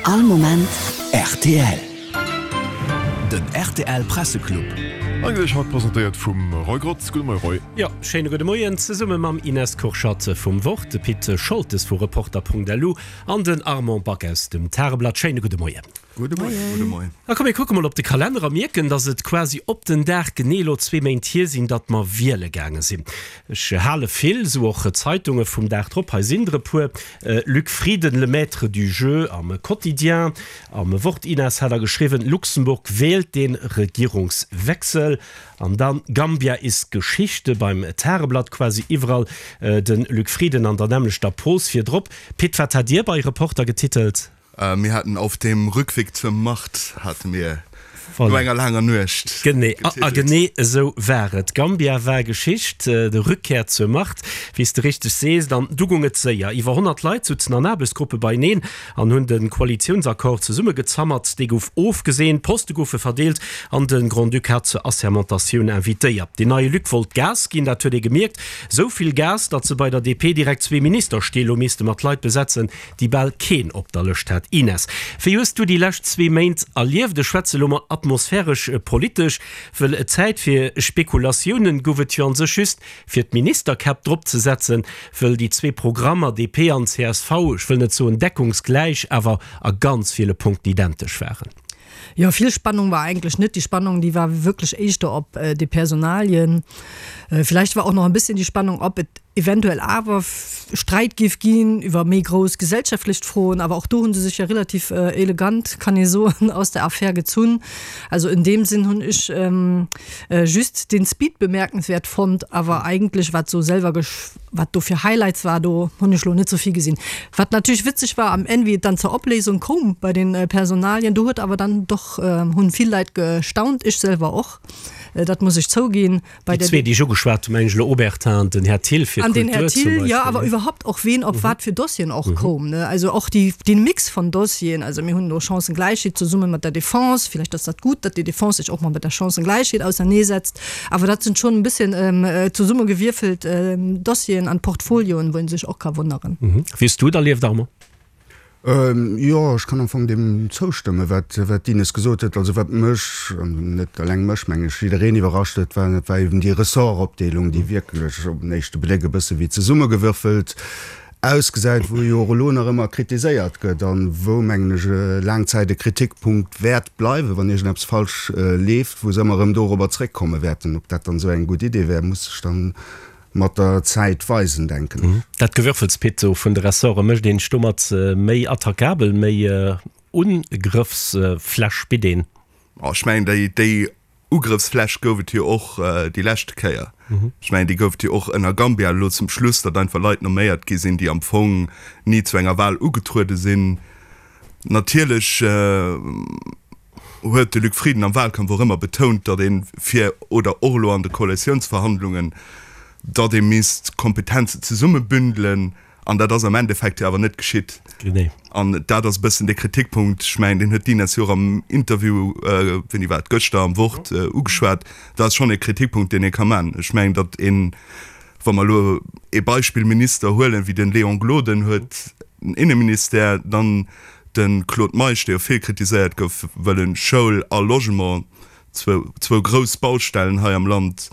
All Moment rtl. Den rtl Presseclub. Eigentlech haut presentéiert vum Roy Grotz. Gudde Moie Roy. Jo, schéine gudde Moien zesumme mam Ines Kurschat vum Wort, de Pit Scholtes vu Reporter.lu an den Armand Back aus dem Tageblatt. Schéine gudde Moien. Gudde Moien. Gudde Moien. A komm mir kucke mol op de Kalenner a mierken, datt et quasi op den Dag genee elo zwee Méint hier sinn, datt mer wiele gaange sinn. Ech hale vill, sou och Zeitunge vum Dag drop. Hei sinn der e puer, Luc Frieden, le maître du jeu am Quotidien, am Wort. Ines hat da geschriwwen, Luxemburg wählt den Regierungswechsel. An dann Gambia ist Geschichte beim Tageblatt, quasi iwwerall de Luc Frieden an der nämmlechter Pos virdrop. Pit, wat hat Dir bei Reporter getitelt? Mir haten Auf dem Rückweg zur Macht hate mir no enger laanger Nuecht Genee, a genee esou war et. Gambia war Geschicht, de Rückkehr zur Macht, wéi s de richteg sees. An du gung et séier. Iwwer 100 Leit sutzen an Aarbechtsgruppe beieneen an hunn de Koalitiounsaccord zesummegezammert. Dee gouf ofgeseent, Poste goufe verdeelt an de Grand-Duc hat zur Assermentatioun invitéiert. Den neie Luc wollt Gas ginn, dat huet ee gemierkt. Esou vill Gas, datt se bei der DP direkt zwee Ministerstill hu misste mat Leit besetzen, déi bal keen op der Lëscht hat. Ines, wéi hues du déi lescht zwee Méint erlieft? Ech schwätze lo mol atmosphäresch politesch, wëll Zäit fir Spekulatiounen gouf et jo an sech just fir d'Ministerkäpp drop ze setzen, wëll déi zwee Programmer, DP an csv, ech wëll net soen deckungsgläich, awer a ganz ville Punkten identesch waren. Jo, vill Spannung war eigentlech net. Déi Spannung, déi war wierklech éischter op de Personalien. Villäicht war och nach e bësschen déi Spannung, ob et eventuell awer Sträit géif ginn iwwer méi grouss gesellschaftlech Froen. Awer och do hu se sech jo relativ elegant, kann ee soen, aus der Affär gezunn. Also in deem Sinn hunn ech just den Speed bemerkenswert fonnt, awer eigentlech wat sou selwer wat do fir Highlights war, do hunn ech lo net sou vill gesinn. Wat natierlech witzeg war am Enn, wéi et dann zur Opléisung koum bei den Personalien, do huet awer dann doch hunn vill Leit gestaunt, ech selwer och, dat muss ech zouginn. Bei Déi zwee, déi ech ugeschwat hunn, mengen ech elo Obertin an den Här Thill fir An den Här Kultur zum Thill, jo, Beispill. awer iwwerhaupt och ween op wat fir Dossieren och koum, ne? Also och déi, dee Mix von Dossieren. Also mir hunn elo Chancengläichheet zesumme mat der Defense. Vielleicht ass dat gutt, datt déi Defense sech och mol mat der Chancengläichheet auserneesetzt. Awer dat sinn schonn e bësschen zesummegewierfelt Dossieren an Portfolioen, wou ee sech och ka wonneren. Wéi hues du et erlieft, Armand? Jo, ech kann am Fong deem zoustëmmen, wat d'Ines gesot huet. Also wat mech, an net eleng mech, meng ech, jiddereen iwwerrascht huet, war, dat war eben déi Ressortopdeelung, déi wierklech op den éischte Bléck e bësse wéi zesummegewürfelt ausgesäit, wou jo och elo nach ëmmer kritiséiert gëtt an wou, mengen ech, laang Zäit e Kritikpunkt wäert bleiwen, wann iergendeppes falsch leeft, wou se ëmmer erëm dorobber zréckkomme wäerten. Ob dat dann esou eng gutt Idee wär, muss sech dann mat der Zäit weisen, denken ech. Dat Gewürfels, Pit, sou vun de Ressorte, mécht een sech domat méi attackabel, méi Ugrëffsfläch bitt een? Ech mengen, déi Ugrëffsfläch gouf et jo och déi leschte Kéier. Ech mengen, déi gouf et jo och ënner Gambia elo zum Schluss, datt einfach Leit nomméiert gi sinn, déi am Fong ni zu enger Wahl ugetruede sinn. Natierlech huet de Luc Frieden am Wahlkampf och ëmmer betount, datt ee fir, oder och elo an de Koalitiounsverhandlungen, datt ee misst Kompetenzen zesummebündelen. An dat ass am Endeffekt jo awer net geschitt. An dat ass e bëssen dee Kritikpunkt, ech mengen, deen huet d'Ines jo och am Interview, wéini war et, gëschter am Wort ugeschwat. Dat ass schonn e Kritikpunkt, deen ee ka man. Ech mengen, datt een, wa mer elo ee Beispillminister huelen, wéi de Léon Gloden huet den Inneministère, dann De Claude Meisch, dee jo vill kritiséiert gouf, wëll en Schoul a Logement, zwou grouss Baustellen hei am Land,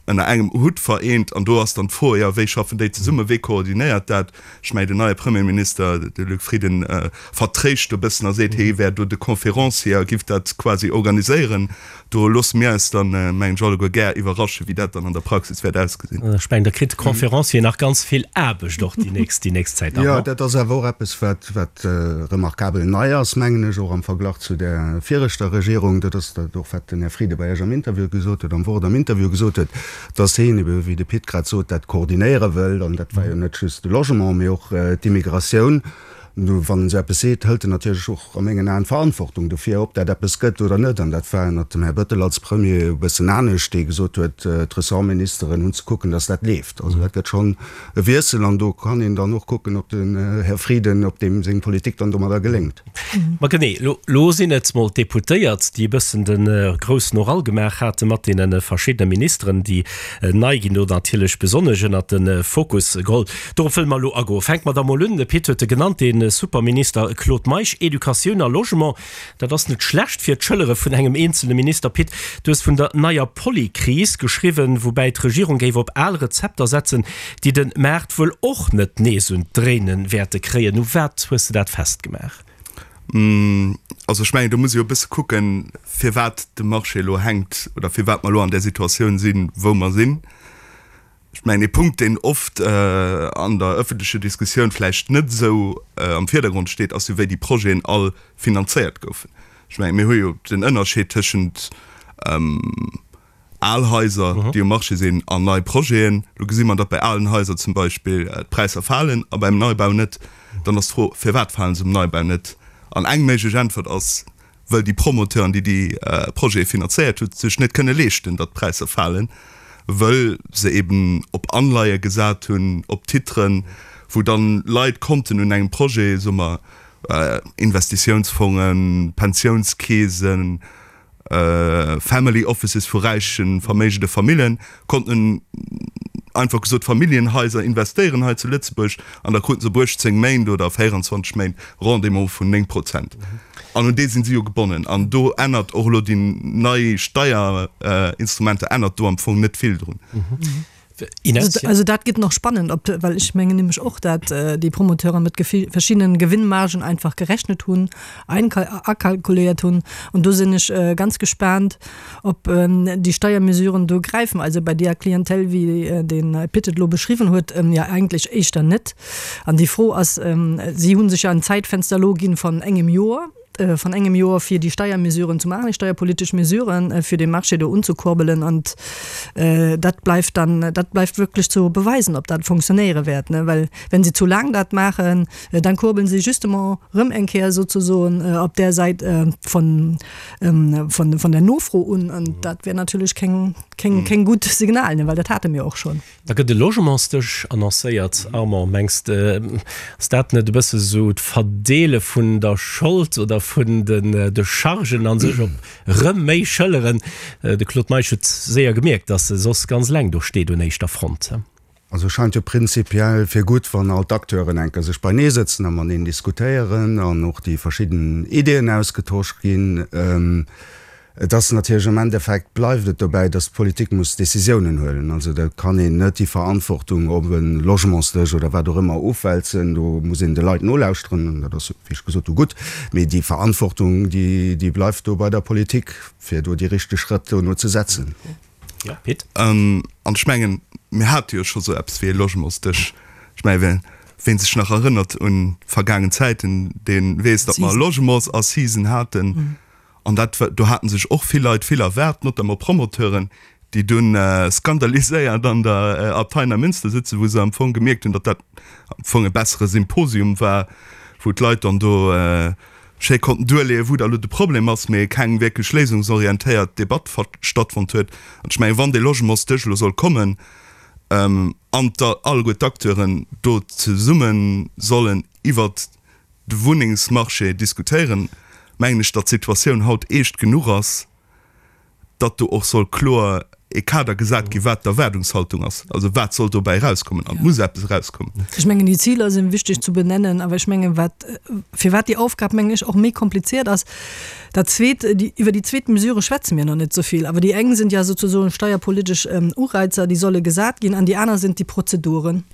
ënner engem Hutt vereent. An do ass dann d'Fro, jo, wéi schaffen déi zesummen, wee koordinéiert dat? Ech mengen, den neie Premierminister, de Luc Frieden, vertréischt do e bëssen a seet, hie wär do de Conférencier a giff dat quasi organiséieren. Do loosse mir eis dann, mengen ech, alleguer gär iwwerraschen, wéi dat dann an der Praxis wäert ausgesinn. Ech mengen, da kritt de Conférencier nach ganz vill Aarbecht och déi nächst, déi nächst Zäit. Jo, dat ass awer och eppes, wat, wat remarkabel nei ass, mengen ech, och am Verglach zu där viregter Regierung. Dat ass dat och, wat den Här Frieden bei Iech am Interview gesot huet, am Wort am Interview gesot huet, dass hien ebe, wéi de Pit grad sot, dat koordinéiere wëllt. An dat war jo net just de Logement, mee och d'Immigratioun. Nu, wann en esou eppes seet, hëlt en natierlech och a mengen Aen d'Verantwortung dofir, ob dat eppes gëtt oder net. An dat war ënnert dem Här Bettel als Premier e bëssen anescht, dee gesot huet, d'Ressortministeren hunn ze kucken, datt dat leeft. Also dat gëtt schonn e Wiessel an do kann een dann och kucken, ob den Här Frieden, ob deem seng Politik dann domadder geléngt. Ma genee, elo sinn et mol d'Deputéiert, déi e bëssen de groussen Oral gemaach hate mat deene verschiddene Ministeren, déi nei ginn, do natierlech besonnesch ënnert de Fokus geholl. Dorop wëlle mer elo agoen. Fänke mer da mol un, de Pit huet e genannt, dee. de Superminister Claude Meisch, Educatioun a Logement. Dat ass net schlecht fir d'Schëllere vun engem eenzele Minister. Pit, du hues vun der neier Polykris geschriwwen, woubäi d'Regierung géif op al Rezepter setzen, déi de Maart wuel och net nees un d'Dréine wäerte kréien. U wat hues de dat festgemaach? Also ech mengen, do muss ee jo e bësse kucken, firwat de Marché elo hänkt oder firwat mer elo an där Situatioun sinn, wou mer sinn. Ech mengen, ee Punkt, deen oft an der öffentlecher Diskussioun vläicht net esou am Virdergrond steet, ass jo, wéi déi Projeten all finanzéiert goufen. Ech mengen, mir hu jo den Ënnerscheed tëschent al Haiser, déi um Marché sinn, an nei Projeten. Elo gesi mer, datt bei alen Haiser zum Beispill d'Präisser falen a beim Neibau net. Dann ass d'Fro, Firwat fale se um Neibau net? An eng méiglech Äntwert ass, wëll déi Promoteuren, déi déi Projete finanzéiert hunn, sech net kënne leeschten, datt d'Präisser falen, wëll se eben op Anleie gesat hunn, op Titren, wou dann Leit konnten un engem Projet, soe mer Investitiounsfongen, Pensiounskeesen, Family Offices vu räichen, verméigende Famillen, konnten einfach gesot Familljenhaiser investéieren hei zu Lëtzebuerg an da kruten se op 18 Méint oder 24 Méint Rendement vun 9 Prozent. An un dee sinn si jo gebonnen. An do ännert och elo déi nei Steierinstrumenter ännert do am Fong net vill drun. Ines? Also dat gëtt nach spannend, ob, well ech mengen nämlech och, dat déi Promoteure mat verschiddenen Gewinnmargen einfach gerechnet hunn, akalkuléiert hunn. An do sinn ech ganz gespaant, ob déi Steiermesuren do gräifen. Also bei deeër Clientèle, wéi de Pit et elo beschriwwen huet, jo eigentlech éischter net. An déi Fro ass, si hu sech jo en Zäitfenster elo ginn von engem Joer, von engem Joer fir déi Steiermesuren ze maachen, déi steierpolitesch Mesuren, fir de Marché do unzekurbelen. An dat bleift dann, dat bleift wierklech zu beweisen, ob dat fonctionnéiere wäert, ne? Well wenn se zu laang dat maachen, dann kurbeln se justement erëm eng Kéier souzesoen op där Säit von, von, von der Nofro un. An dat wär natierlech keng, keng, keng gutt Signal, ne? Well dat hate mir och schonn. Da gëtt e Logementsdësch annoncéiert. Armand, mengs de, ass dat net e bësse sou d'Verdeele vun der Schold oder vun de Chargen a sech op rëm méi Schëlleren? De Claude Meisch huet séier gemierkt, datt e soss ganz eleng do steet un éischter Front. Also scheint jo prinzipiell fir gutt, wann all d'Acteuren enker sech beinee sëtzen a mateneen diskutéieren an och déi verschidden Ideeën ausgetosch ginn. Et ass natierlech am Endeffekt bleift et dobäi, datt d'Politik muss Décisiounen huelen. Also da kann een net déi Verantwortung op e Logementsdësch oder wat och ëmmer ofwälzen. Do muss een de Leit nolauschteren, an dat ass, wéi ech gesot hu, gutt. Mee déi Verantwortung, déi, déi bleift do bei der Politik, fir do déi richteg Schrëtt dono ze setzen. Jo, Pit? An ech mengen, mir hate jo scho sou eppes wéi e Logementsdësch. Ech mengen, ween sech nach erënnert un vergaangen Zäiten, dee weess, datt mer Logementsassisen haten. An dat, do haten sech och vill Leit vill erwaart, notamment Promoteuren, déi dunn skandaliséiert an der Abtei Neimünster sitzen, wou se am Fong gemierkt hunn, datt dat am Fong e bessere Symposium war, wou d'Leit dann do schéi konnten duerleeën, wou da lo de Problem ass, mee keng wierklech léisungsorientéiert Debatt stattfonnt huet. An ech mengen, wann dee Logementsdësch elo soll kommen an alleguer d'Acteuren do zesumme sollen iwwert de Wunnengsmarché diskutéieren, mengen ech, datt d'Situatioun haut eescht genuch ass, datt do och soll kloer e Kader gesat ginn, wat d'Erwaardungshaltung ass. Also wat soll dobäi erauskommen? An et muss eppes erauskommen. Ech mengen, déi Ziler si wichteg zu benennen, awer ech mengen, wat, firwat déi Aufgab, mengen ech, och méi kompliziert ass, dat Zweet, déi, iwwer déi zweet Mesure schwätze mir nach net esou vill, awer déi eng sind ja sozusagen steierpolitesch Ureizer, déi solle gesat ginn, an déi aner sind déi Prozeduren.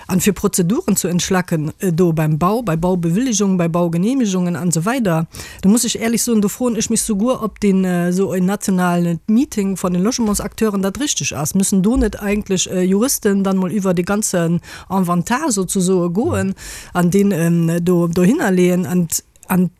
An fir Prozeduren zu entschlacken do beim Bau, bei Baubewilligungen, bei Baugenehmigungen an esou weider, do muss ech éierlech soen, do froen ech mech souguer, ob deen esou en nationalen Meeting von den Logementsakteuren dat richteg ass. Müssen do net eigentlech Juristen dann mol iwwer dee ganzen Inventar souzesoe goen an deen do dohinnerleeën an, an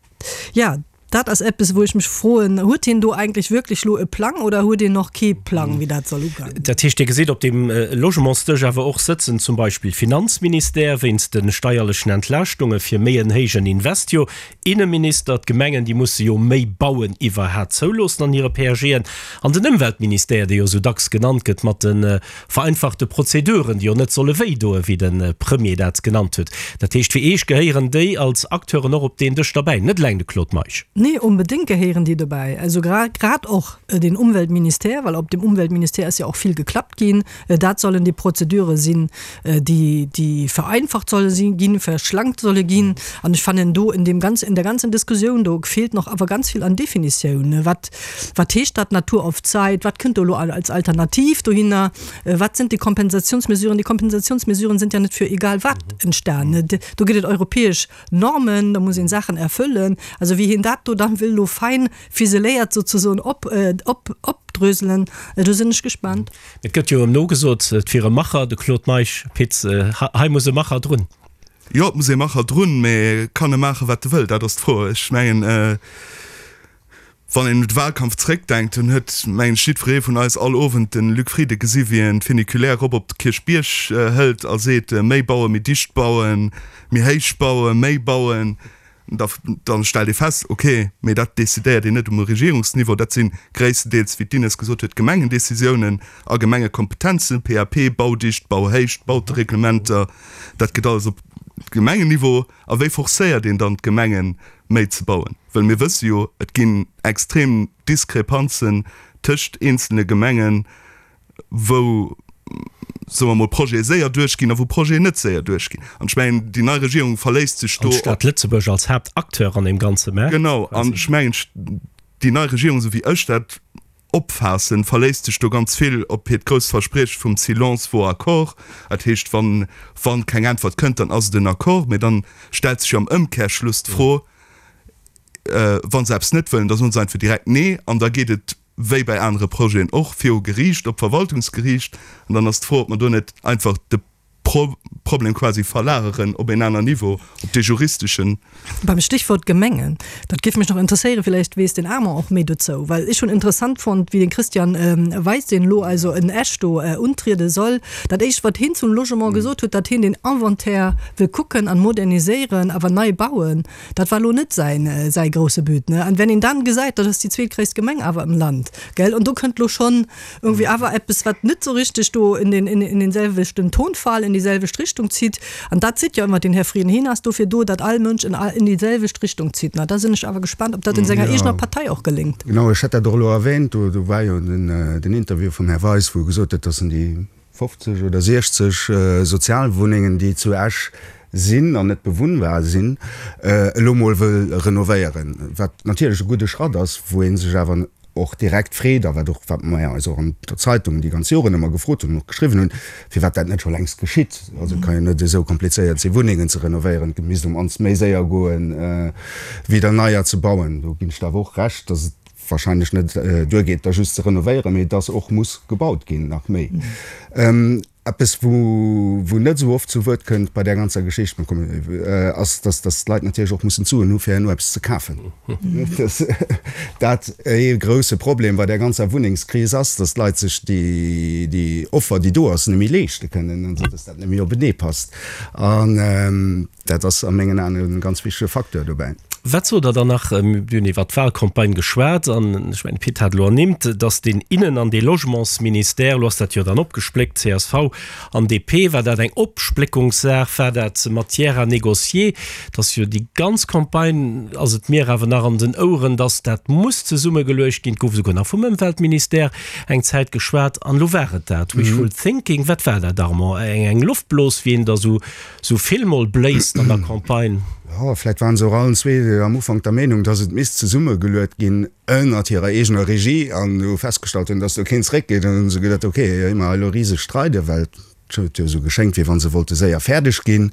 jo, Dat ass eppes, wou ech mech froen, Huet hien do eigentlech wierklech elo e Plang oder huet een och kee Plang, wéi dat soll ugoen? Dat heescht, Dir gesitt op deem Logementsdësch awer och sëtzen zum Beispill Finanzministère wéinst de steierlechen Entlaaschtunge fir méi en héijen Invest, jo Inneminister, d'Gemengen, déi musse jo méi bauen iwwerhat zouloossen an hire PAGen, an den Ëmweltministère, dee jo esou dacks genannt gëtt mat de vereinfachte Prozeduren, déi jo net solle wéi doen, wéi de Premier dat genannt huet. Dat heescht, fir Iech gehéieren déi als Acteuren och op deen Dësch derbäi, net eleng de Claude Meisch. Nee, onbedéngt gehéieren déi dobäi. Also grad och den Umweltministère, well op dem Umweltministère ass jo och vill geklappt ginn. Dat sollen déi Prozedure sinn, déi, déi vereinfacht solle si ginn, verschlankt solle ginn. An ech fannen do in deem ganzen, in der ganzen Diskussioun do feelt nach awer ganz vill an Definitioun. Wat, wat heescht dat Natur auf Zeit? Wat kënnt do elo als Alternativ dohinner? Wat sind déi Kompensationsmesuren? Déi Kompensationsmesuren sind ja net fir egal wat entstanen. Do gëtt et europäesch Normen, da muss een Saachen erfüllen. Also wéi hien dat do dann wëll elo fein fiseléiert souzesoen op, op, opdröselen, do sinn ech gespaant. Et gëtt jo ëm nogesot, et wier e Macher, de Claude Meisch. Pit, hei muss e Macher drun. Jo, et muss ee Macher drun, mä kann e maachen, wat e wëll? Dat ass d'Fro. Ech mengen, Wann een un de Wahlkampf zréckdenkt, dann huet, mengen ech, jiddweree vun eis all Owend de Luc Frieden gesi wéi en d'Funiculaire erop op de Kierchbierg hëlt a seet, méi bauen, méi dicht bauen, méi héich bauen, méi bauen. Da da stellt ee fest, ok, mee dat decidéiert een net um Regierungsniveau, dat si gréisstendeels, wéi d'Ines gesot huet, Gemengendecisiounen a Gemengekompetenzen, PAP, Baudicht, Bauhéicht, Bautereglementer, dat gëtt alles op Gemengenniveau. A wéi forcéiert een dann d'Gemengen, méi ze bauen? Well mir wësse jo, et ginn extrem Diskrepanzen tëscht eenzelne Gemengen, wou, soe mer mol, Projete séier duerchginn a wou Projeten net séier duerchginn. An ech mengen, déi nei Regierung verléisst sech do op. An d'Stad Lëtzebuerg als Haaptacteur an deem ganze Maart. Genau. An ech mengen, déi nei Regierung, esou wéi ech dat Opfaassen, verléisst sech do ganz vill op hiert grousst Versprieche vum Silence vaut accord. Dat heescht, wann, wann keng Äntwert kënnt, dann ass et en Accord. Mä dann stellt sech jo am Ëmkehrschluss d'Fro, wa se eppes net wëllen, da soen se einfach direkt Nee an da geet et, wéi bei anere Projeten och, viru Geriicht, op d'Verwaltungsgeriicht. An dann ass d'Fro, ob mer do net einfach de Problem quasi verlageren op een aner Niveau, op dee juristeschen. Beim Stichwort Gemengen, dat géif mech nach interesséieren, villäicht weess den Armand och méi dozou, well ech hunn interessant fonnt, wéi den Christian Weis, deen elo also en Esch do untriede soll, dat éischt wat hien zum Logement gesot huet, datt hien den Inventaire wëll kucken an moderniséieren, awer nei bauen, dat war elo net säin säi grousse But, ne. An wenn een dann gesäit, dat ass déi zweetgréisst Gemeng awer im Land, gell, an do kënnt elo schonn Irgendwie awer eppes, wat net sou richteg do in den, in den selwechten Tonfall, in déi selwecht Richtung zitt. An dat zitt jo ëmmer den Här Frieden. Hien ass dofir do, datt all Mënsch in, in déi selwecht Richtung zitt. Na, da sinn ech awer gespaant, ob dat in senger eegener Partei och geléngt. Genau, ech hat dat och elo erwähnt. Do, do war jo den, den Interview vum Här Weis, wou e gesot huet, datt en déi 50 oder 60 Sozialwunnengen, déi zu Esch sinn an net bewunnbar sinn, elo mol wëll renovéieren. Wat natierlech e gudde Schratt ass, wou ee sech awer och direkt freet, a wat och, wat mer eis och an der Zeitung déi ganz Joren ëmmer gefrot hunn an och geschriwwen hunn, firwat dat net scho längst geschitt. Also et ka jo net esou komplizéiert sinn, Wunnengen ze renovéieren. Et misst um mannst méi séier goen, wéi der neier ze bauen. Do ginn ech der awer och Recht, dass et wahrscheinlech net duergeet, der just ze renovéieren, mee dass och muss gebaut ginn, nach méi. Eppes, wou wou net esou oft zu Wuert kënnt bei där ganzer Geschicht, ass, dass dass d'Leit natierlech och mussen d'Suen hu fir herno eppes ze kafen. Dass dat ee grouse Problem bei där ganzer Wunnengskris ass, dass d'Leit sech déi déi Offer, déi do ass, net méi leeschte kënnen, also dass dat net méi openee passt. An Dat ass a mengen Aen e ganz wichtege Facteur dobäi. Wat sot Der dann nach? Mir hunn iwwert d'Wahlcampagne geschwat an ech mengen, de Pit hat elo ernimmt, datt deen Innen an dee Logementsministère, elo ass dat jo dann opgespléckt, csv an DP, war dat eng Opspléckungssaach, war dat Matière à négocier? Et ass jo déi ganz Campagne, ass et mir awer nach an den Oueren, datt dat muss zesummegeluecht ginn. Et gouf esouguer nach vum Ëmweltministère eng Zäit geschwat an elo war et dat. Wishful thinking, wat war dat, Armand? Eng Loftblos, wéi een der esou Sou vill mol bléist an der Campagne. Jo, vläit waren se och allen zwee am Ufank der Meenung, dass et misst zesummegeluet ginn ënnert hirer eegener Regie an hu festgestallt hunn, dass do keen zréckgeet. An hunn se geduet, ok, ier mer hei elo riseg streiden, well et huet jo esou geschéngt, wéi wa se wollte séier fäerdeg ginn,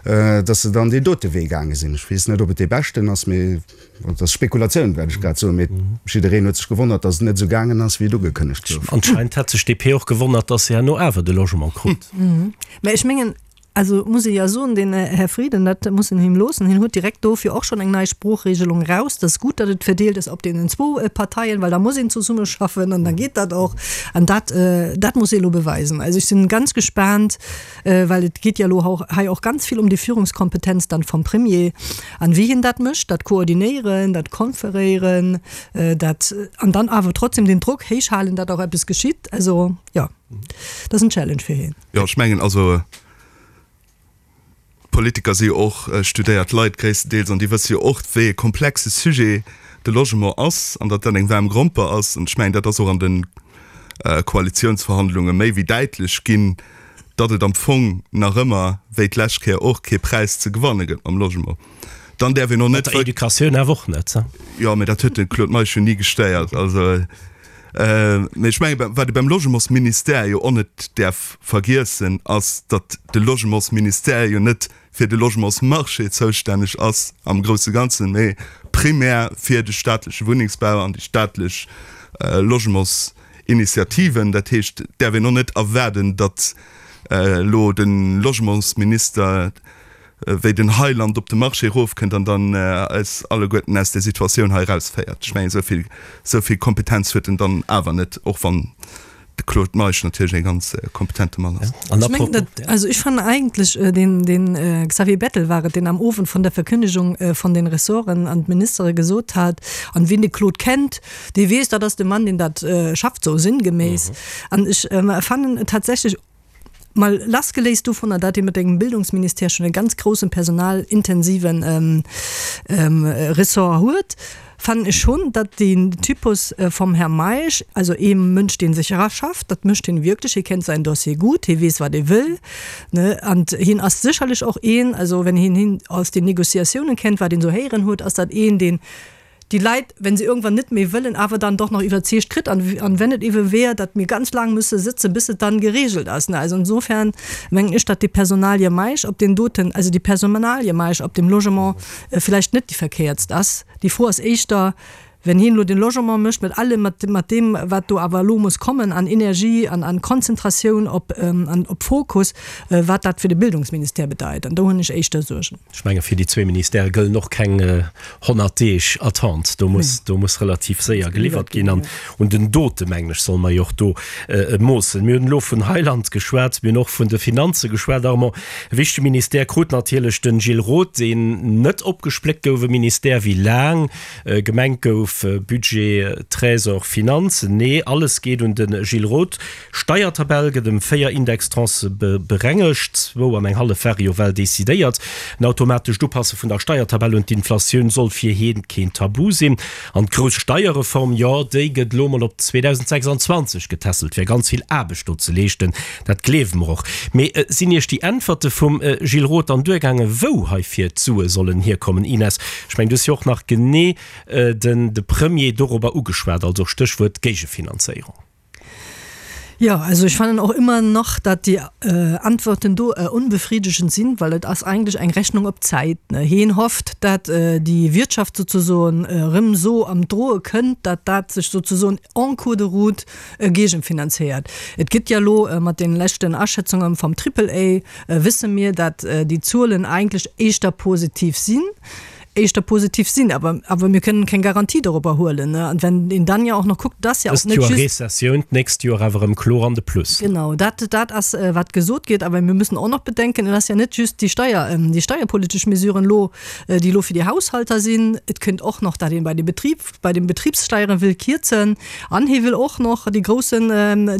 dass se dann deen dote Wee gaange sinn. Ech weess net, ob et dee beschten ass, mee dat ass Spekulatioun, wat ech grad soen, mee jiddereen huet sech gewonnert, dass et net esou gaangen ass, wéi et ugekënnegt gouf. Anscheinend hat sech d'DP och gewonnert, dass se herno awer de Logement krut. Mä ech mengen, also muss ee jo soen, den Här Frieden, dat muss een him loossen, hien huet direkt dofir och schonn eng nei Sproochregelung eraus. Dat ass gutt, datt et verdeelt ass op deenen zwou Parteien, well da muss een zesummeschaffen an da geet dat och. An dat, dat muss ee elo beweisen. Also ech sinn ganz gespaant, well et geet jo elo hei och ganz vill ëm déi Führungskompetenz dann vum Premier an wéi hien dat mécht, dat koordinéieren, dat konferéieren, dat an dann awer trotzdem den Drock héich halen, datt och eppes geschitt. Also jo. Dat ass en Challenge fir hien. Jo, ech mengen, also d'Politiker si jo och studéiert Leit gréisstendeels an déi wësse jo och, wéi e komplexe Sujet. de Logement ass an datt dat eng waarm Gromper ass. An ech mengen, dat ass och an de Koalitiounsverhandlunge méi wéi däitlech ginn, datt et am Fong nach ëmmer, wéi d'lescht Kéier och, kee Präis ze gewanne gëtt mam Logement. Dann däerf een och net. Mat der Educatioun awer och net. Jo, mä dat huet de Claude Meisch jo ni gestéiert. Also, mä ech mengen, wat ee beim Logementsministère jo och net däerf vergiessen, ass, datt de Logementsministère jo net fir de Logementsmarché zoustänneg ass am grousse Ganzen, mee primär fir de staatleche Wunnengsbau an déi staatlech Logementsinitiativen. Dat heescht, et däerf een och net erwaarden, datt elo de Logementsminister wéi den Heiland op de Marché erofkënnt an dann eis alleguerten aus där Situatioun hei erausféiert. Ech mengen, esou vill Kompetenz huet en dann awer net, och wann De Claude Meisch natierlech e ganz kompetente Mann ass. An Ech mengen, dat, also ech fannen eigentlech, deen, deen Xavier Bettel war et, deen am Owend vun der Verkündigung von den Ressorten an d'Ministere gesot hat, an wien de Claude kennt, dee weess, dat ass de Mann, deen dat schafft, sou sinngeméiss. An ech fannen tatsächlech, mal lassgeléist dovunner, dat ee mat engem Bildungsministère schon e ganz groussen personalintensiven Ressort huet, fannen ech schon, datt deen Typus vum Här Meisch, also ee Mënsch, dee sech eraschafft, dat mécht hien wierklech, hie kennt säin Dossier gutt, hie weess, wat e wëll, ne, an hien ass sécherlech och een, also wenn een hien aus den Négociatiounen kennt, wat een esou héieren huet, ass dat een, deen déi Leit, wenn se irgendwann net méi wëllen, awer dann doch nach iwwerzeegt kritt an, an wenn et ewe wär, datt mir ganz laang müsse sëtzen, bis et dann geregelt ass. Ne, also insofern mengen ech, datt déi Personalie Meisch op deem doten, also déi Personalie Meisch op dem Logement vläicht net déi verkéiertst ass. Déi Fro ass éischter, wenn hien elo de Logement mécht mat allem, mat, mat deem, wat do awer elo muss kommen an Energie an an Konzentratioun op, an op Fokus, wat dat fir de Bildungsministère bedeit. An do hunn ech éischter Suergen. Ech menge fir déi zwee Ministèrë gëllen och keng 100 Deeg Attente. Do muss, do muss relativ séier geliwwert ginn. An un den Dote, mengen ech, solle mer jo och do moossen. Mir hunn elo vun Heiland geschwat, mir hunn och vun de Finanze geschwat, Armand. E wichtege Ministère krut natierlech de Gilles Roth, deen net opgespléckt gouf, e Ministère, wéi laang gemengt gouf, Budget, Trésor, Finanzen. Nee, alles geet un de Gilles Roth. Steiertabell gëtt ëm 4 Indextranchë berengegt, zwou an eng hallef ware jo well decidéiert. En automatescht Upasse vun der Steiertabell un d'Inflatioun soll fir hien keen Tabu sinn. An d'grouss Steierreform, jo déi gëtt elo mol op 2026 getässelt, wär ganz vill Aarbecht do ze leeschten, dat gleewe mer och. Mee sinn Iech déi Äntwerte vum Gilles Roth dann duergaangen, wou heifir d'Sue sollen hierkommen? Ines, ech mengen du hues jo och nach genee den de Premier dorobber ugeschwat, also Stéchwuert Géigefinanzéierung. Ja, also ich fannen och immer nach, dat déi Antworten do unbefriedigend sinn, well et ass eigentlech eng Rechnung op Zäit. Hien hofft, dat déi Wirtschaft sozesoen erëm esou am Droe kënnt, dat dat sech sozesoen en cours de route géigenfinanzéiert. Et gëtt ja elo mat den leschten Aschätzungen vom Triple A wësse mir, dat déi Zuelen eigentlech éischter positiv sinn. éischter positiv sinn, awer, awer mir kënnen keng Garantie dorobber huelen, ne. An wenn een dann ja och nach kuckt, dass ja och net just. Dëst Joer Rezessioun, d'nächst Joer awer erëm kloer an de Plus. Genau, dat, dat ass, wat gesot gétt. Awer mir müssen och nach bedenken, et ass ja net just déi Steier, déi steierpolitesch Mesuren elo, déi elo fir déi Haushalter sinn. Et kënnt och nach, dat een bei de Betrib, bei den Betriebssteieren wëll kierzen an hie wëll och nach dee groussen,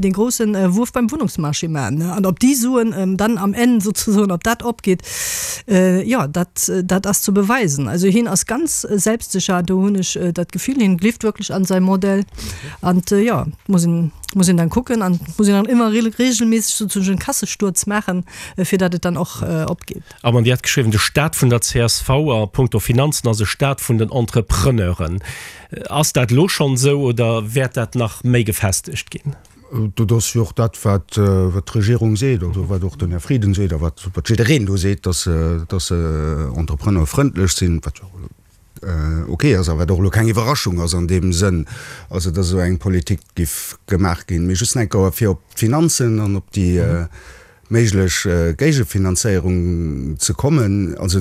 dee groussen Wuerf beim Wunnungsmarché maachen. An ob déi Suen dann am Enn sozesoen, ob dat opgeet, jo, dat, dat ass ze beweisen. Also hien ass ganz selbstsicher, do hunn ech dat Gefill, hien gleeft wierklech an säi Modell. An jo, muss een, muss een dann kucken an muss een dann ëmmer regelméisseg sozesoen Kassesturz maachen, fir datt et dann och opgeet. Armand, Dir hat geschriwwen, de Staat vun der csv a punkto Finanzen ass e Staat vun den Entrepreneuren. Ass dat elo schonn esou oder wäert dat nach méi gefestegt ginn? Dat ass jo och dat, wat d'Regierung seet, also wat och den Här Frieden seet a wat jiddereen do seet, dass se entrepreneurfrëndlech sinn, wat jo ok ass a wat och elo keng Iwwerraschung ass an deem Sënn, also dass esou eng Politik giff gemaach ginn. Mee just nach eng Kéier fir op d'Finanzen an op déi méiglech Géigefinanzéierung ze kommen. Also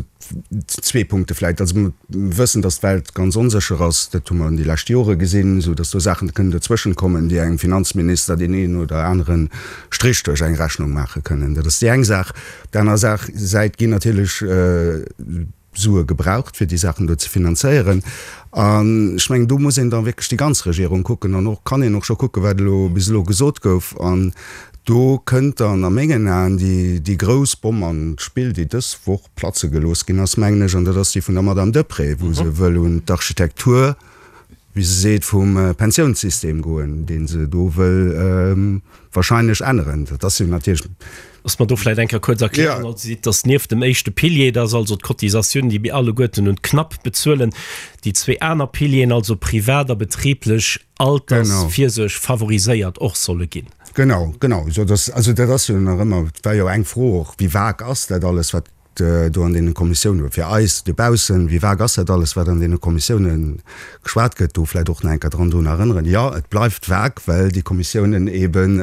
zwee Punkte vläicht. Also mir wëssen, datt d'Welt ganz onsécher ass, dat hu mer an déi lescht Jore gesinn, esou datt do Saachen kënnen dozwëschen kommen, déi engem Finanzminister deen een oder anere Strich duerch eng Rechnung maache kënnen. Dat ass déi eng Saach. Op der anerer Saach Säit ginn natierlech Sue gebraucht, fir déi Saachen do ze finanzéieren. An ech mengen, do muss een da wierklech déi ganz Regierung kucken an och kann een och scho kucken, wat elo bis elo gesot gouf. An do kënnt dann a mengen Aen déi, déi grouss Bomm an d'Spill, déi dës Woch platze gelooss ginn ass, mengen ech, an dat ass déi vun der Madame Deprez, wou se wëll un d'Architektur. wéi se seet, vum Pensiounssystem goen, dee se do wëll wahrscheinlech änneren. Dat ass jo natierlech. Looss mer do vläicht eng Kéier kuerz erklären. Also si seet, dass nieft dem éischte Pilier, dat ass also d'Cotisatioun, déi mir alleguerten un d'Knapp bezuelen, déi zwee aner Pilieren, also privat a betriblech Altersvirsuerg, favoriséiert och solle ginn. Genau, genau. Also dat ass jo nach ëmmer, et war jo eng Fro och, wéi vag ass dat alles, wat do an deene Kommissiounen, fir eis dobaussen, wéi vag ass dat alles, wat an deene Kommissiounen geschwat gëtt, do vläicht och nach eng Kéier dran drun erënneren, jo, et bleift vag, well déi Kommissiounen eeben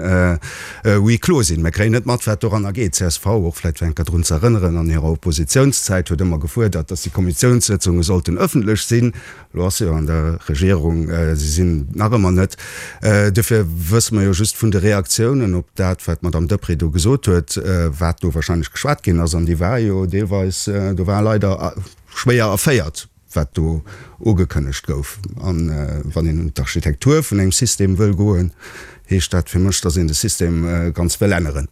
huis clos sinn. Mir kréien net mat, wat doranner geet. Csv, och vläicht fir eng Kéier drun ze erënneren, an hirer Oppositiounszäit huet ëmmer gefuerdert, dass déi Kommissiounssëtzunge sollten ëffentlech sinn. Elo ass se jo an der Regierung, se sinn nach ëmmer net. Duerfir wësse mer jo just vun de Reaktiounen op dat, wat d'Madame Deprez do gesot huet, wat do wahrscheinlech geschwat ginn ass. An déi war jo deelweis, do war leider schwéier erféiert, wat do ugekënnegt gouf. A wann een un d'Architektur vun engem System wëll goen, heescht dat fir mech, datt een de System ganz wëll änneren.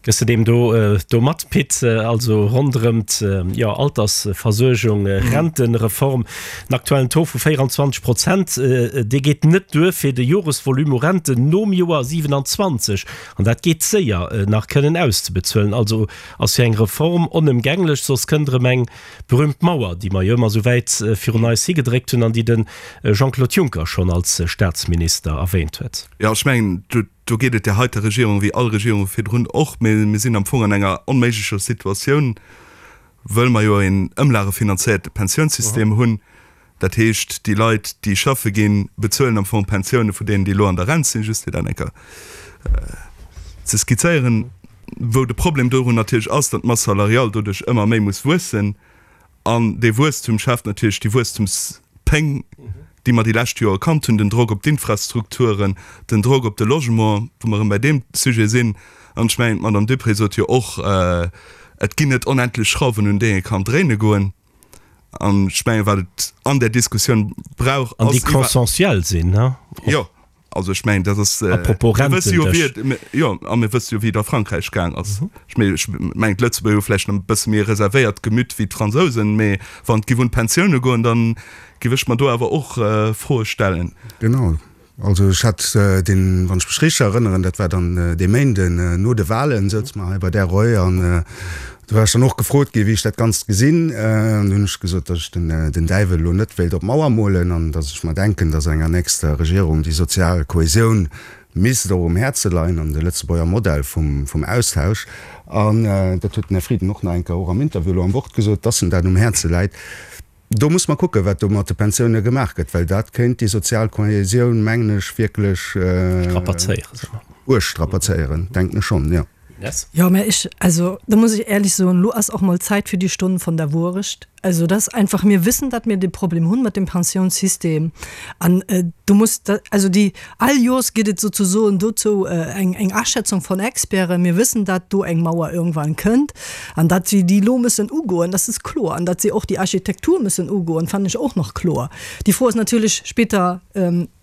Gëss de deem do do mat, Pit? Also ronderëm d'jo Altersversuergung, Rentereform, den aktuellen Taux vu 24 Prozent, dee geet net duer fir de Joresvolume u Renten nom Joer 27, an dat geet séier, nach kënnen auszebezuelen. Also ass jo eng Reform onëmgänglech, soss kënnt erëm eng berühmt Mauer, déi mer jo ëmmer esou wäit virun eis higedréckt hunn an déi de Jean-Claude Juncker schonn als Staatsminister erwähnt huet. Jo, ech mengen, Do geet et där heiter Regierung wéi all Regierunge virdrun och. Mee mir sinn am Fong an enger onméiglecher Situatioun, wëll mer jo een ëmlagefinanzéierte Pensiounssystem hunn. Dat heescht, déi Leit, déi schaffe ginn, bezuelen am Fong d'Pensioune vu deenen, déi elo an der Rent sinn, just fir dat eng Kéier ze skizzéieren. Wou de Problem dorun natierlech ass, datt d'Masse salariale doduerch ëmmer méi muss wuessen. An dee Wuesstum schaaft natierlech déi Wuesstumspéng, déi mer déi lescht Joer kannt hunn, den Drock op d'Infrastrukturen, den Drock op de Logement, wou mer erëm bei deem Sujet sinn. An ech mengen, d'Madame Duprez sot jo och, et ginn net onendlech Schrauwen, un déi ee kann dréine goen. An ech mengen, wat et an där Diskussioun brauch, ass. An déi consensuel sinn, ne? Jo. Also ech mengen, dat ass, Apropos mir wësse jo, wéi et, jo, a mir wësse jo, wéi et a Frankräich gaang ass. Ech mengen, ech mengen, d'Lëtzebuerger hu vläicht nach e bësse méi e reservéiert Gemüt wéi d'Fransousen, mee wann et giff un d'Pensioune goen, da giff ech mer do awer och Froe stellen. Genau. Also ech hat deen, wann ech mech richteg erënneren, dat war dann dee Méinden no de Wahlen, souze mer hei bei där Reu an Do war ech dann och gefrot ginn, wéi ech dat Ganzt gesinn. An do hunn ech gesot, datt ech den Däiwel elo net wéilt op d'Mauer molen an datt ech mer denken, datt enger nächster Regierung déi sozial Kohäsioun misst och um Häerze leien an de Lëtzebuerger Modell vum Austausch. An dat huet den Här Frieden och nach eng Kéier och am Interview elo am Wort gesot, datt em dat um Häerze läit. Do muss mer kucken, wat do mat de Pensioune gemaach gëtt, well dat kéint déi sozial Kohäsioun, mengen ech, wierklech uerg strapazéieren, denken ech schonn, jo. Jo, mä ech, also do muss ech éierlech soen, elo ass och mol Zäit fir déi Stonn von der Wuerecht. Also dat ass einfach, mir wëssen, datt mir dee Problem hunn mat dem Pensiounssystem an do muss, also déi, all Joers gëtt et souzesoen dozou eng, eng Aschätzung von Experten. Mir wëssen, datt do eng Mauer irgendwann kënnt. An datt si déi elo müssen ugoen, das ist kloer. An datt si och déi Architektur müssen ugoen, fannen ech och nach kloer. Déi Fro ass natierlech später,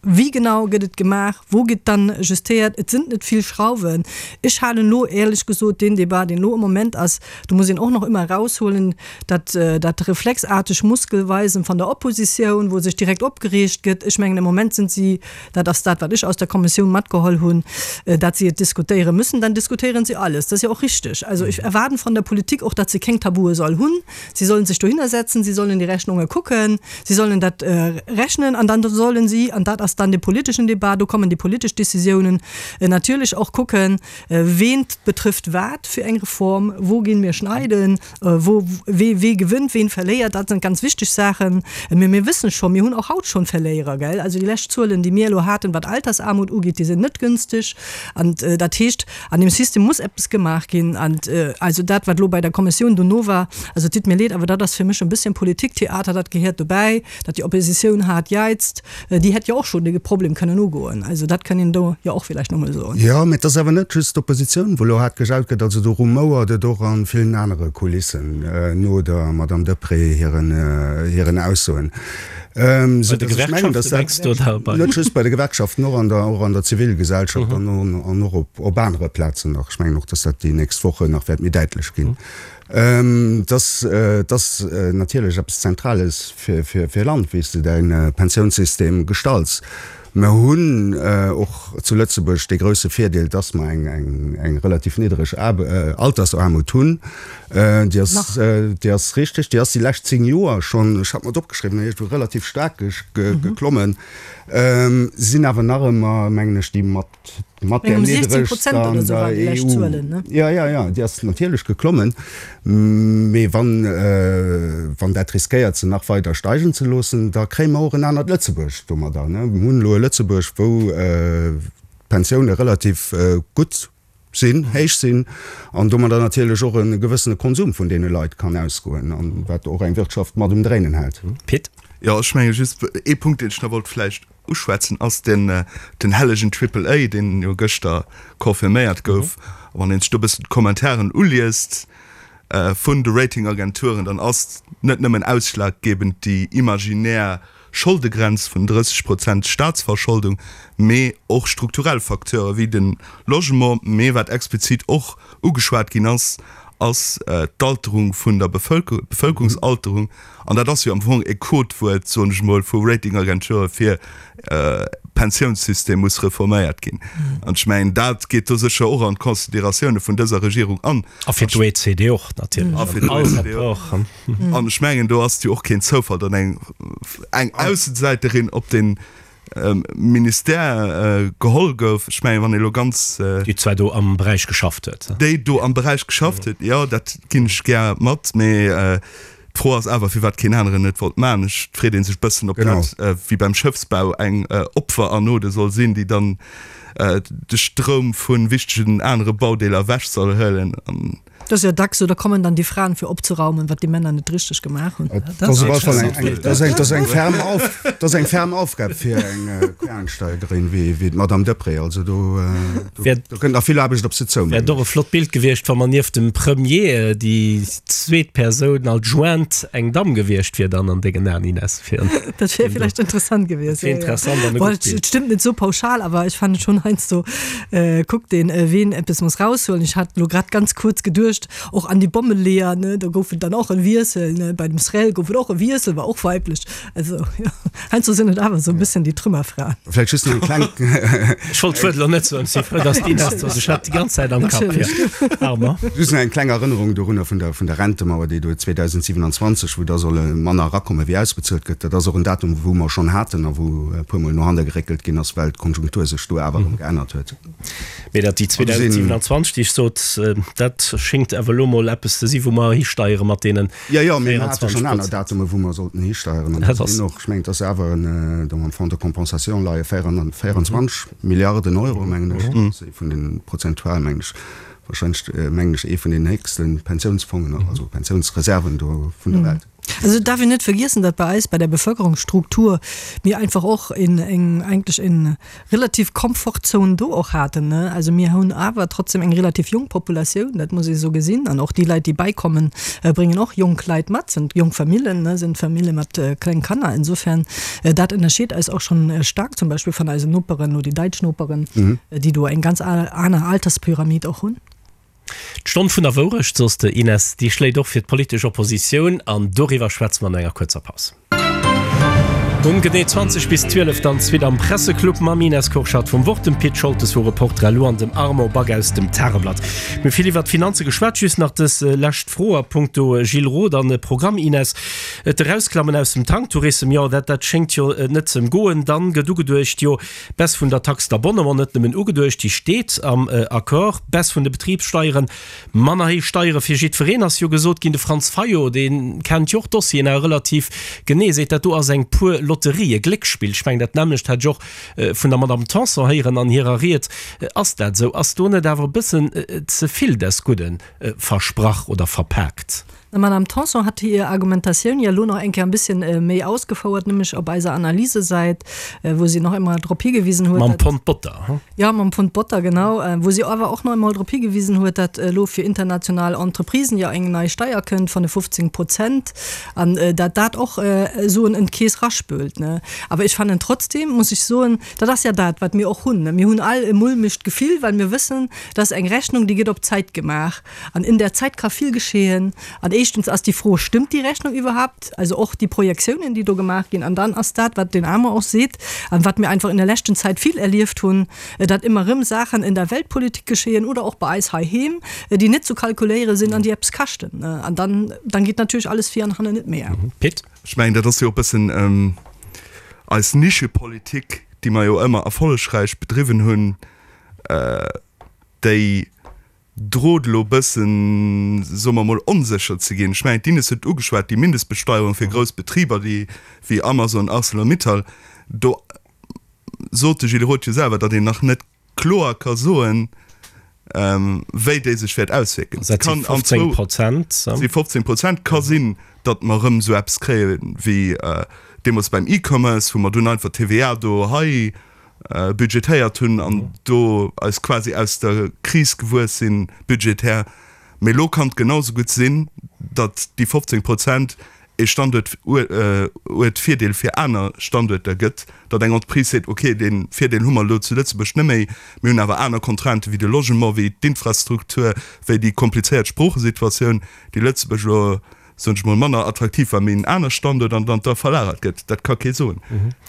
Wéi genau gëtt et gemaach? Wou gëtt dann justéiert? Et sinn net vill Schrauwen. Ech halen elo éierlech gesot deen Débat, deen elo am Moment ass, do muss een och nach ëmmer eraushuelen, dat, dat reflexarteg Muskelweisen van der Oppositioun, wou sech direkt opgereegt gëtt. Ech mengen, am Moment sind si Dat ass dat, wat ech aus der Kommissioun matgeholl hunn, dat si et diskutéiere müssen. Dann diskutéieren si alles. Dat ass jo och richtig. Also ech erwaarden von der Politik och, datt se keng Tabue soll hunn. Si sollen sech dohinner setzen, si sollen déi Rechnunge kucken, si sollen dat rechnen an dann sollen si, an dat ass dann de politeschen Débat, do kommen déi politesch Décisiounen, natierlech och kucken, ween betrifft wat fir eng Reform, wou ginn mir schneiden, Wou, wee, wee gewënnt, ween verléiert, dat sinn ganz wichteg Saachen. Mee mir wëssen scho, mir hunn och haut schonn Verléierer, gell? Also déi lescht Zuelen, déi mir elo haten, wat Altersarmut ugeet, déi sinn net günstig. An dat heescht, an deem System muss eppes gemaach ginn. An also dat, wat elo bei der Kommissioun dono war, also et ditt mir leed, awer dat ass fir mech e bësschen Politiktheater, dat gehéiert dobäi, datt déi Oppositioun haart jäizt. Déi hätt jo och schonn de Problem kënnen ugoen. Also dat kënn een do jo och villäicht nach emol soen. Jo, mä et ass awer net just d'Oppositioun, wou elo haart gejaut gëtt. Also do rumouert et och a villen anere Kulissen no der Madame Deprez hiren, hiren Aussoen. Bei de Gewerkschaften, mengs du, oder bei? Net just bei de Gewerkschaften, och an der, och an der Zivilgesellschaft an, an och op, op anere Plazen nach. Ech mengen och, dass dat déi nächst Wochen nach wäert méi däitlech ginn. Dat ass natierlech eppes Zentrales fir e Land, wéi s de däi Pensiounssystem gestalts. Mer hunn och zu Lëtzebuerg dee grousse Virdeel, dass mer eng relativ niddereg Altersaarmut hunn. Déi ass, déi ass richteg, déi ass déi lescht 10 Joer schonn, ech hat mer et opgeschriwwen, iergendwou relativ staark geklommen, sinn awer nach ëmmer, mengen ech, déi mat Mat där niddregster an der EU. Jo, jo, jo, déi ass natierlech geklommen. Mee wann, wann dat riskéiert, se nach weider steigen ze loossen, da kréie mer och en anert Lëtzebuerg domadder. Mir hunn elo e Lëtzebuerg, wou d'Pensioune relativ gutt sinn, héich sinn an domadder natierlech och e gewëssene Konsum vun deene Leit kann ausgoen, an wat och eng Wirtschaft mat um Dréinen hält. Pit. Jo, ech menge just ee Punkt, deen ech nach wollt vläicht Uschwätzen ass den den hellegen Triple A, deen jo gëschter confirméiert gouf. A wann een sech do e bëssen d'Commentairen uliest vun de Ratingagenturen, dann ass net nëmmen ausschlaggebend déi imaginär Scholdegrenz vun 30 Prozent Staatsverscholdung, mee och strukturell Facteure wéi de Logement. Mee wat explizit och ugeschwat ginn ass, ass d'Alterung vun der Bevëlkerung, d'Bevëlkerungsalterung. An dat ass jo am Fong e Codewuert, soen ech emol, vu Ratingagenture fir Pensiounssystem muss reforméiert ginn. An ech mengen, dat geet do sécher och an d'Consideratioune vun dëser Regierung an. A fir d'OECD och natierlech. A fir d'OECD och. An ech mengen, do ass et jo och keen Zoufall, datt eng eng Aussesäiterin op dee Ministère geholl gouf. Ech mengen, wann ee elo ganz. Déi zwar do am Beräich geschafft huet. Déi do am Beräich geschafft huet, jo, dat ginn ech gär mat. Mee D'Fro ass awer, firwat keen aneren et wollt maachen. Ech, et freet ee sech bëssen, ob dat wéi beim Schëffsbau eng Opferanode soll sinn, déi dann de Stroum vu wichtegen anere Baudeeler ewech soll huelen. Dat ass jo dacks esou, da kommen dann déi Fraen fir opzeraumen, wat déi Männer net richteg gemaach hunn. Dat ass op alle Fall eng, dat ass eng ferm Auf, dat ass eng ferm Aufgab fir eng Quereinsteigerin wéi d'Madame Deprez. Also do, do kënnt nach vill Aarbecht op se zou, mengen ech. Wär och e flott Bild gewiescht, wa mer nieft dem Premier déi zweet Persoun adjointe eng Damm gewiescht wier dann an dengen Aen, Ines? Fir Dat wär villäicht interessant gewiescht. Dat wär interessant an e gutt Bild. Et stëmmt net sou pauschal, awer ech fannen schonn heiansdo kuckt een, ween eppes muss raushuelen. Ech hat elo grad ganz kuerz geduecht och an déi Bommeleeër, ne, do gouf et dann och e Wiessel, ne, bei dem Srel gouf et och e Wiessel, war och weiblech. Also jo, heiansdo sinn et awer esou e bëssen déi Trümmerfraen. Vläicht just nach eng kleng. Ech wollt d'Wuert elo net soen, si frou, dass d'Ines do ass. Ech hat déi ganz Zäit am Kapp. Armand. Just nach eng kleng Erënnerung dorunner vun der, vun der Rentemauer, déi do 2027, wou da solle manner erakommen, wéi ausbezuelt gëtt. Dat ass och en Datum, wou mer schonn haten a wou e puermol no hanne geréckelt ginn ass, well d'Konjunktur sech do awer erëm geännert huet. Mee dat déi 2027, déi ech sot, dat schéngt awer elo mol eppes ze si wou mer histeiere mat deenen 24 Prozent. Jo, jo, mee mer hate schonn aner Datume wou mer sollten histeieren. An dat sinn och, ech mengen, et ass awer en, do am Fonds de compensation leie 24 Milliarden Euro, mengen ech. Dat ass ee vun den, prozentual mengen ech, wahrscheinlech, mengen ech, ee vun den héchste Pensiounsfongen, also Pensiounsreserven do vun der Welt. Also et darf een net vergiessen, datt bei eis bei der Bevölkerungsstruktur mir einfach och en eng eigentlech en relativ Komfortzone do och haten, ne. Also mir hunn awer trotzdem eng relativ jonk Populatioun, dat muss ee sou gesinn. An och déi Leit, déi beikommen, bréngen och jonk Leit mat, sind jonk Famillen, ne, sind Famille mat kleng Kanner. Insofern, dat ënnerscheet eis och schonn staark zum Beispill van eisen Noperen, lo déi däitsch Noperen, déi do eng ganz aner Alterspyramid och hunn. D'Stonn vun der Wourecht, soss de Ines, déi schléit och fir d'politesch Oppositioun an doriwwer schwätze mer no enger kuerzer Paus. Um genee 20 bis 12 dann d'Suite am Presseclub mam Ines Kurschat vum Wort, dem Pit Scholtes vu Reporter elo an dem Armand Back aus dem Tageblatt. Mir hu vill iwwert d'Finanze geschwat, just nach dës lescht Fro a punkto Gilles Roth an Programm, Ines. D'Erausklammen aus dem Tanktourism, jo dat dat schéngt jo net ze goen. Dann gëtt ugeduecht, jo Baisse vun der Taxe d'abonnement, net nëmmen ugeduecht, déi steet am Accord. Baisse vun de Betribssteieren, manner héich Steiere fir jiddwereen ass jo gesot ginn. De Franz Fayot, dee kennt jo och d'Dossieren awer relativ genee, seet, dat do ass eng pur Lotterie, e Gléckspill. Ech mengen, dat nämmlecht hat ech och vun der Madame Tanson héieren an hirer Ried. Ass dat esou? Ass do net awer e bëssen ze vill des Gudden versprach oder verpaakt? D'Madame Tanson hat hir Argumentatioun jo elo nach eng Kéier e bësschen méi ausgefouert, nämlech op eiser Analysesäit, wou si nach eemol drop higewisen huet, Mam Pond Botter, hu? Jo, mam Pond Botter, genau. Wou si awer och nach eemol drop higewisen huet, datt elo fir international Entreprisen jo eng nei Steier kënnt vun de 15 Prozent an datt dat och Suen en d'Keess raspült. Awer ech fannen trotzdem, muss ech soen, dat ass ja dat, wat mir och hunn, mir hunn all e mulmegt Gefill, well mir wëssen, dat ass eng Rechnung, déi gëtt op d'Zäit gemaach. An in der Zeit ka vill geschehen. An éischtens ass déi Fro, Stëmmt déi Rechnung iwwerhaupt? Also och déi Projektiounen, déi do gemaach ginn. An dann ass dat, wat den Armand och seet an wat mir einfach in der leschten Zäit vill erlieft hunn, datt ëmmer erëm Saachen in der Weltpolitik geschehen oder och bei eis heiheem, déi net zu kalkuléiere sinn an déi eppes kaschten. An dann, dann geet natierlech alles vir an hannen net méi. Pit. Ech mengen, dat ass jo e bëssen eis Nischepolitik, déi mer jo ëmmer erfollegräich bedriwwen hunn, déi drot elo bëssen, soe mer emol, onsécher ze ginn. Ech mengen, d'Ines huet et ugeschwat, déi Mindestbesteuerung fir grouss Betriber, déi wéi Amazon, Arcelor-Mittal, do sot de Gilles Roth jo selwer, datt een nach net kloer ka soen, wéi déi sech wäert auswierken. Dat si 15 Prozent. Si 15 Prozent. Ka sinn, datt mer erëm esou eppes kréie wéi deemools beim E-Commerce, wou mer dunn einfach d'TVA do hei budgetéiert hunn an do eis quasi aus der Kris gewuess sinn, budgetär. Mee elo kann et genau esou gutt sinn, datt déi 15 Prozent ee Standuertvirdeel fir aner Standuerter gëtt, datt eng Entreprise seet, okay, dee Virdeel hu mer elo zu Lëtzebuerg net méi, mir hunn awer aner Contrainten, wéi de Logement, wéi d'Infrastruktur, wéi déi komplizéiert Sproochesituatioun, déi Lëtzebuerg elo soen ech mol, manner attraktiv war, mee en aner Standuert an dann da verlagert gëtt, dat ka kee soen.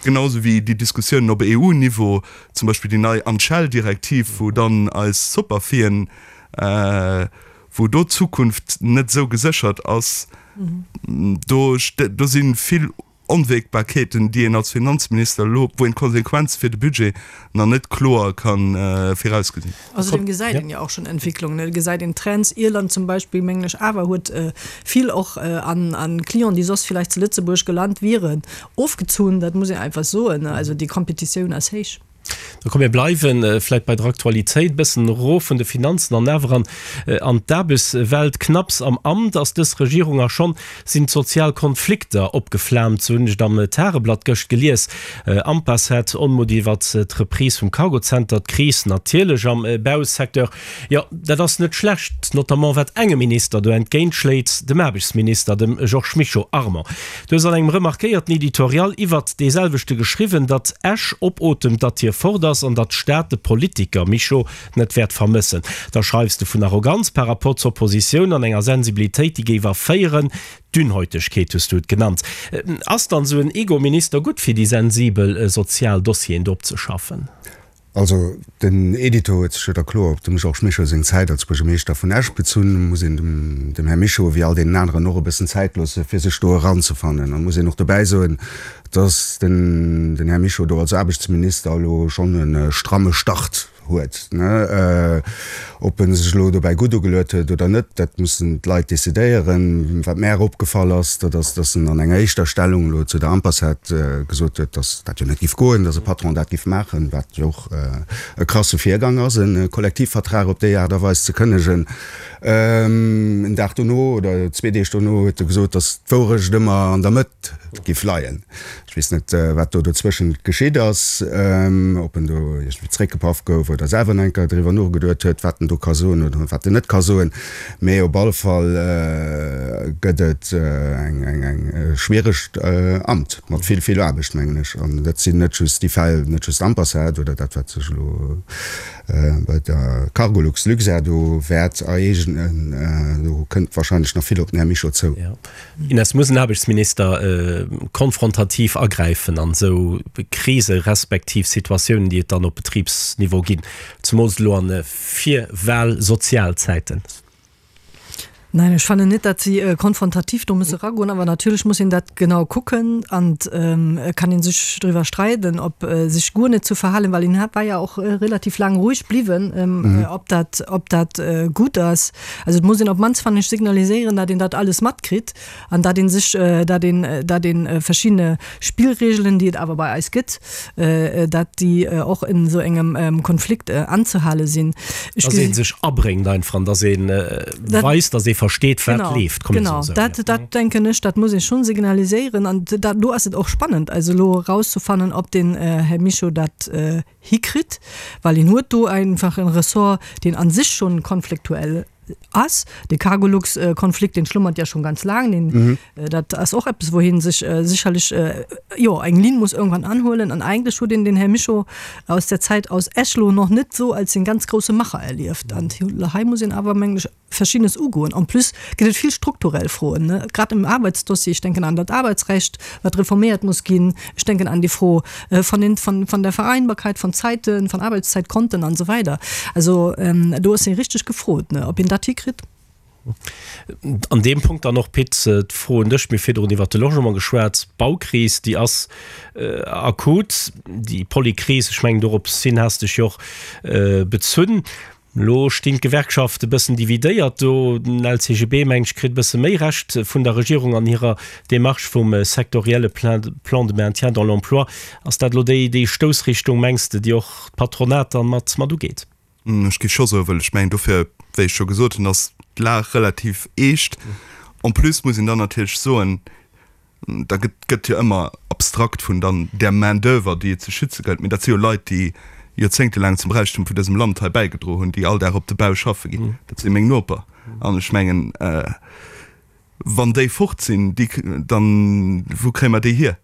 Genau esou wéi déi Diskussiounen op EU-Niveau, zum Beispill déi nei Anschell-Direktiv, wou dann eis Soperfien, wou do d'Zukunft net esou geséchert ass, do do si vill Onwägbarkeeten, déi een als Finanzminister elo, wou een d'Konsequenze fir de Budget nach net kloer ka virausgesinn. Ausserdem gesäit een jo och schonn Entwicklungen, et gesäit een Trends. Irland zum Beispill, mengen ech awer, huet vill och an Clienten, déi soss villäicht zu Lëtzebuerg gelant wieren, ofgezunn. Dat muss een einfach soen. Also déi Competitioun ass héich. Da komm mir bleiwe vläit bei der Aktualitéit, e bëssen erof vun de Finanzen an awer an an d'Aarbechtswelt. Knapps am Amt ass dës Regierung a schonn sinn d'sozial Konflikter opgeflaamt, sou hunn ech et am Tageblatt gëscht gelies. Ampacet, Onmutt iwwert d'Reprise vum Cargozenter, d'Kris natierlech am Bausecteur. Jo, dat ass net schlecht, notamment wat engem Minister do entgéint schléit, dem Aarbechtsminister, dem Georges Mischo. Armand, du hues an engem remarquéierten Editorial iwwert dee selwechte geschriwwen, datt Esch opotemt, datt hie fort ass an datt d'Stad de Politiker Mischo net wäert vermëssen. Da schreifs de vun Arroganz par rapport zur Oppositioun an enger Sensibilitéit, déi géif erféieren. Dünnhäutegkeet hues du et genannt. Ass dann esou en Ego-Minister gutt fir déi sensibel sozial Dossieren do opzeschaffen? Also den Editor huet sech jo da kloer op dem Georges Mischo seng Zäit als Buergermeeschter vun Esch bezunn. Muss een dem dem Här Mischo, wéi all deenen aneren och, e bëssen Zäit loosse fir sech do eranzefannen. An muss een och dobäi soen, datt den den Här Mischo do als Aarbechtsminister elo schonn e stramme Start huet. Ob e sech elo dobäi gutt ugeluet huet oder net, dat mussen d'Leit decidéieren. Wat mär opgefall ass, dat ass, datt en an enger éischter Stellung elo zu der Ampacet gesot huet, datt dat jo net giff goen, datt e Patron dat giff maachen, wat jo och e krasse Virgang ass, e Kollektivvertrag op déi Aart a Weis ze kënnegen. En Dag dono oder zwee Deeg dono huet e gesot, datt d'Wourecht ëmmer an der Mëtt giff leien. Ech weess net, wat do dozwëschent geschitt ass, ob en do iergendwéi zréckgepaff gouf oder selwer nach eng Kéier driwwer nogeduet huet, wat en do ka soen oder wat en net ka soen. Mee op alle Fall gëtt et eng schwieregt Amt mat vill, vill Aarbecht, mengen ech. An dat sinn net just déi Fäll, net just Ampacet oder dat, wat sech elo bei der Cargolux, Luxair do wäert ereegnen. Do kënnt wahrscheinlech nach vill op den Här Mischo zou. Ines, Muss en Aarbechtsminister konfrontativ agräifen an esou Krise respektiv Situatiounen, déi et dann op Betribsniveau ginn, zemools elo an Virwahl-Sozialzäiten? Nein, ech fannen net, datt si konfrontativ do musse eragoen, awer natierlech muss een dat genau kucken an et kann ee sech driwwer streiden, ob sech guer net ze verhalen, well een war ja och relativ laang roueg bliwwen, ob dat, ob dat gutt ass. Also et muss een op d'mannst, fannen ech, signaliséieren, datt een dat alles matkritt an datt ee sech, datt een, datt ee verschiddene Spillregelen, déi et awer bei eis gëtt, datt déi och en esou engem Konflikt anzehale sinn. Ech Datt ee sech abréngt einfach an datt ee weist, datt ee. versteet, wat leeft. Genau, dat, dat denken ech, dat muss ee schonn signaliséieren. An dat, do ass et och spannend, also elo erauszefannen, ob den Här Mischo dat hikritt, well hien huet do einfach e Ressort, deen a sech schonn konfliktuell ass. De Cargolux-Konflikt, deen schlummert ja schonn ganz laang, deen, dat ass och eppes, wou hie sech sécherlech, jo, eng Linn muss irgendwann anhuelen. An eigentlech huet een den Här Mischo aus der Zäit aus Esch lo nach net esou als den ganz grousse Macher erlieft. An hei muss een awer, mengen ech, Verschiddenes ugoen. En plus gëtt et vill strukturell Froen, grad im Arbeitsdossier. Ech denken an dat Arbeitsrecht, wat reforméiert muss ginn. Ech denken an déi Fro von den, von, von der Vereinbarkeit von Zeiten, von Arbeitszeitkonten an esou weider. Also do ass ee richteg gefrot, ob een dat hikritt. An deem Punkt dann och, Pit, d'Fro un dech, Mir hu virdrun iwwert de Logement geschwat. D'Baukris, déi ass akut, déi Polykris, ech mengen dorops hin has dech jo och bezunn. Elo stinn d'Gewerkschafte bëssen dividéiert do. Den LCGB, mengen ech, kritt e bësse méi Recht vun der Regierung an hirer Démarche vum sektorielle Plan de maintien dans l'emploi. Ass dat elo déi déi Stoussrichtung, mengs de, déi och d'Patronat dann mat mat ugeet? Ech géif scho soen, well ech mengen dofir, wéi ech scho gesot hunn, ass d'Lag relativ eescht. En plus muss een dann natierlech soen, Da gëtt gëtt jo ëmmer abstrakt vun dann där Main d'oeuvre, déi et ze schütze gëllt, mee dat si jo Leit, déi joerzéngtelaang zum Räichtum vun dësem Land hei bäigedro hunn, déi all Dag op de Bau schaffe ginn. Dat si meng Noper. An ech mengen, wann déi fort sinn, déi, dann, wou kréie mer déi hier?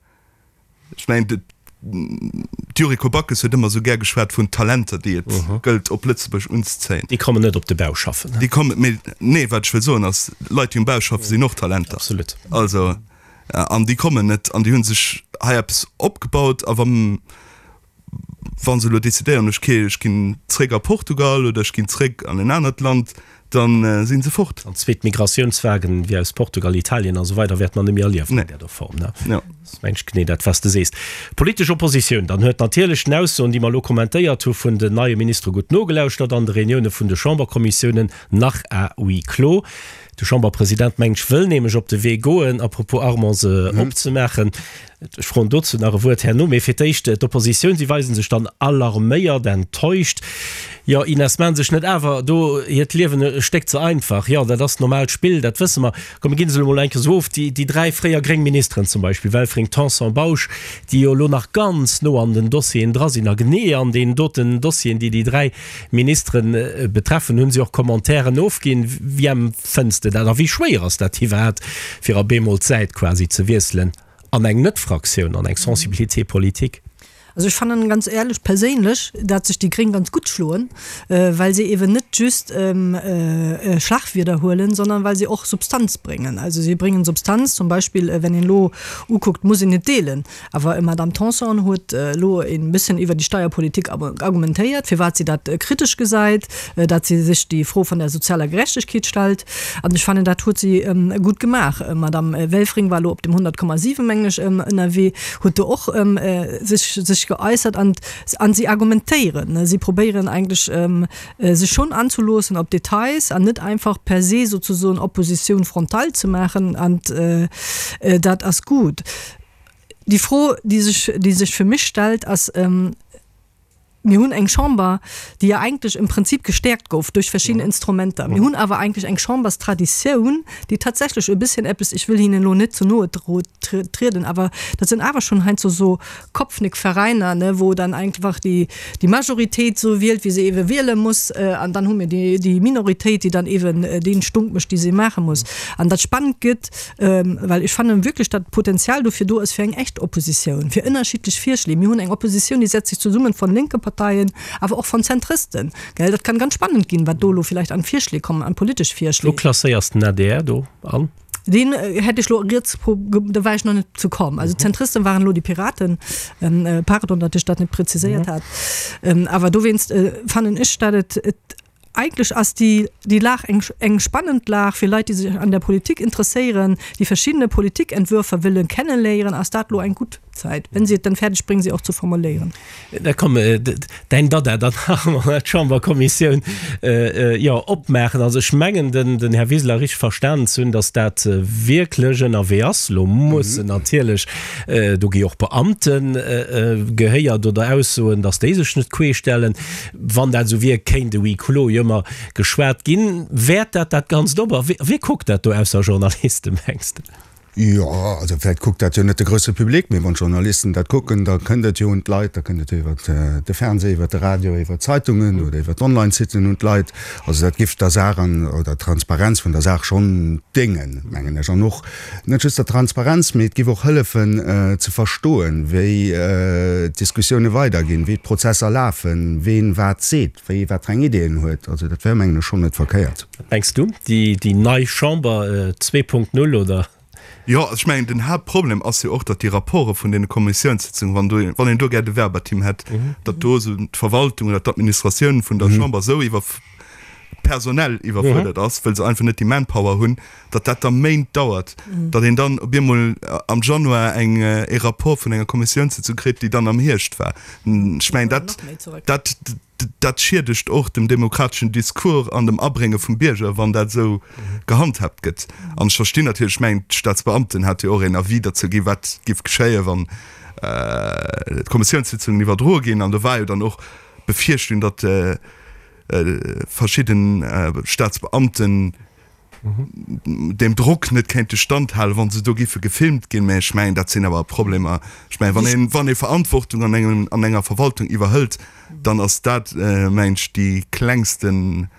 Ech mengen, d'Yuriko Backes huet ëmmer esou gär geschwat vun Talenter, déi et gëllt op Lëtzebuerg unzezéien. Déi kommen net op de Bau schaffen. Déi kommen, mee nee, wat ech wëll soen ass, Leit, déi um Bau schaffen, sinn och Talenter. Absolut. Also, an déi kommen net an déi hu sech hei eppes opgebaut a wa wa se elo decidéieren, ech ech ginn zréck a Portugal oder ech ginn zréck an en anert Land, da si se fort. An zweet Migratiounswagen wéi aus Portugal, Italien a sou weider wäerte mer net méi erliewen an där Form, ne? Jo. Dat mengt ech genee dat, wat s de sees. D'politesch Oppositioun dann huet natierlech den Aussoen, déi mer elo kommentéiert hu vun den neie Ministere gutt nogelauschtert an de Reunioune vun de Chamberkommissiounen nach à huis clos. De Chamberpresident, mengt ech, wëll nämlech op de Wee goen, à propos Armand, se opzemaachen. Ech froen dozou nach e Wuert herno. Mee fir d'éischt d'Oppositioun, si weise sech dann alarméiert, enttäuscht. Jo, Ines, maachen sech net awer do hiert Liewen e Stéck ze einfach? Jo, dat ass normaalt Spill, dat wësse mer. Komm, mir ginn se elo mol eng Kéier esou of, déi, déi dräi fréier gréng Ministeren zum Beispill, Welfring, Tanson, Bausch, déi jo elo nach ganz no an den Dossieren dra sinn a genee an deenen doten Dossieren, déi déi dräi Ministeren betreffen, hu si och Commentairen ofginn. Wéi empfënns de dat a wéi schwéier ass dat iwwerhaapt, fir op eemol d'Säit quasi ze wiesselen? An eng Net-Fraktioun, an eng Sensibilité politique. Also ech fannen ganz éierlech perséinlech, dat sech déi Gréng ganz gutt schloen, well se eeben net just Schlagwierder huelen, sondern well se och Substanz bréngen. Also si bréngen Substanz, zum Beispill wenn een elo ukuckt, muss een net deelen, awer d'Madame Tanson huet elo e bësschen iwwer déi Steierpolitik argumentéiert, firwat si dat kritesch gesäit, dat si sech déi Fro vun der sozialer Gerechtegkeet stellt. An ech fannen, dat huet si gutt gemaach. D'Madame Welfring war elo op dem 100,7, mengen ech, ënnerwee, huet do och sech, sech geäussert. An, an si argumentéieren. Si probéieren eigentlech, sech schonn anzeloossen op Details an net einfach per se sozesoen Opposition frontale ze maachen. An dat ass gutt. Déi Fro, déi sech, déi sech fir mech stellt, ass, Mir hunn eng Chamber, déi jo eigentlech im Prinzip gestäerkt gouf duerch verschidden Instrumenter. Mir hunn awer eigentlech eng Chamberstraditioun, déi tatsächlech e bësschen eppes, ech wëll hinnen elo net ze noe trieden, awer dat sinn awer schonn heiansdo esou Kopfnickveräiner, ne, wou dann einfach déi, déi Majoritéit esou wielt, wéi se eebe wiele muss, an dann hu mir déi, déi Minoritéit, déi dann eeben dee Stunk mécht, dee se maache muss. An dat spannend gëtt, Well ech fannen wierklech, datt Potenzial dofir do ass fir eng echt Oppositioun, fir ënnerschiddlech Virschléi. Mir hunn eng Oppositioun, déi setzt sech zesummen von lénke Parteien, awer och von Zentristen. Gell, dat kann ganz spannend ginn, wat do elo villäicht an Virschléi kommen, an politesch Virschléi. Wou klasséiers den adr do an? Deen hätt ech elo riets, do war ech nach net zu komm. Also d'Zentristen waren elo déi Piraten, pardon, datt ech dat net präziséiert hat. Awer dowéinst fannen ech, datt et, et Eigentlech ass déi déi Lag eng eng spannend Lag fir Leit, déi sech an der Politik interesséieren, déi verschiddene Politikentwürfer wëlle kenneléieren, ass dat elo eng gutt. Zäit, wenn si et dann fäerdeg bréngen, se och ze formuléieren. Da komm, däin Dada dann nach emol d'Chamberkommissioun, jo, opmaachen. Also ech mengen, den Här Wiseler richteg verstanen ze hunn, datt dat wierklech ënnerwee ass. Elo mussen natierlech, do gi och Beamte gehéiert oder Aussoen, datt déi sech net queeschstellen. Wann dat esou wier, kéint e Huis clos jo ëmmer geschwat ginn. Wäert dat dat Ganzt op? A wie kuckt dat do ausser Journalisten, mengs de? Jo, also vläicht kuckt dat jo net de grousse Public, mee wann d'Journalisten dat kucken, da kënnt et jo un d'Leit, da kënnt et jo iwwer de Fernseh, iwwer de Radio, iwwer d'Zeitungen oder iwwer d'Online-Siten un d'Leit. Also dat giff der Saach an oder der Transparenz vun der Saach schonn déngen, mengen ech. An och net just der Transparenz, mee et giff och hëllefen ze verstoen, wéi d'Diskussioune weiderginn, wéi d'Prozesser lafen, ween wat seet. Wéi wat fir eng Ideeën huet. Also dat wär, mengen ech, schonn net verkéiert. Wat mengs du? Déi nei Chamber 2.0 oder? Jo, also ech mengen, den Haaptproblem ass jo och, datt déi Rapporte vun deene Kommissiounssitzungen, wann do, wann een do gär de Verbatim hätt, datt do esou d'Verwaltung oder d'Administratioun vun der Chamber esou iwwer, personell iwwerfuerdert ass, wëll se einfach net déi Manpower hunn, datt dat da Méint dauert, datt een dann op eemol am Januar eng, ee Rapport vun enger Kommissiounssitzung kritt, déi dann am Hierscht war. Ech mengen, dat, dat, dat schiedegt och dem demokrateschen Discours an dem Abrénge vum Bierger, wann dat esou gehandhaabt gëtt. An ech verstinn natierlech, ech mengen, d'Staatsbeamten hate jo och een Avis derzou ginn, wat géif geschéien, wann d'Kommissiounssitzungen iwwerdroe ginn. An do war jo dann och d'Befierchtung, datt verschidden Staatsbeamten deem Drock net kéinte standhalen, wa se do giffe gefilmt ginn. Mä ech mengen, dat sinn awer Problemer. Ech mengen, wann een, wann ee Verantwortung an engem, an enger Verwaltung iwwerhëlt, dann ass dat, mengen ech, déi klengsten,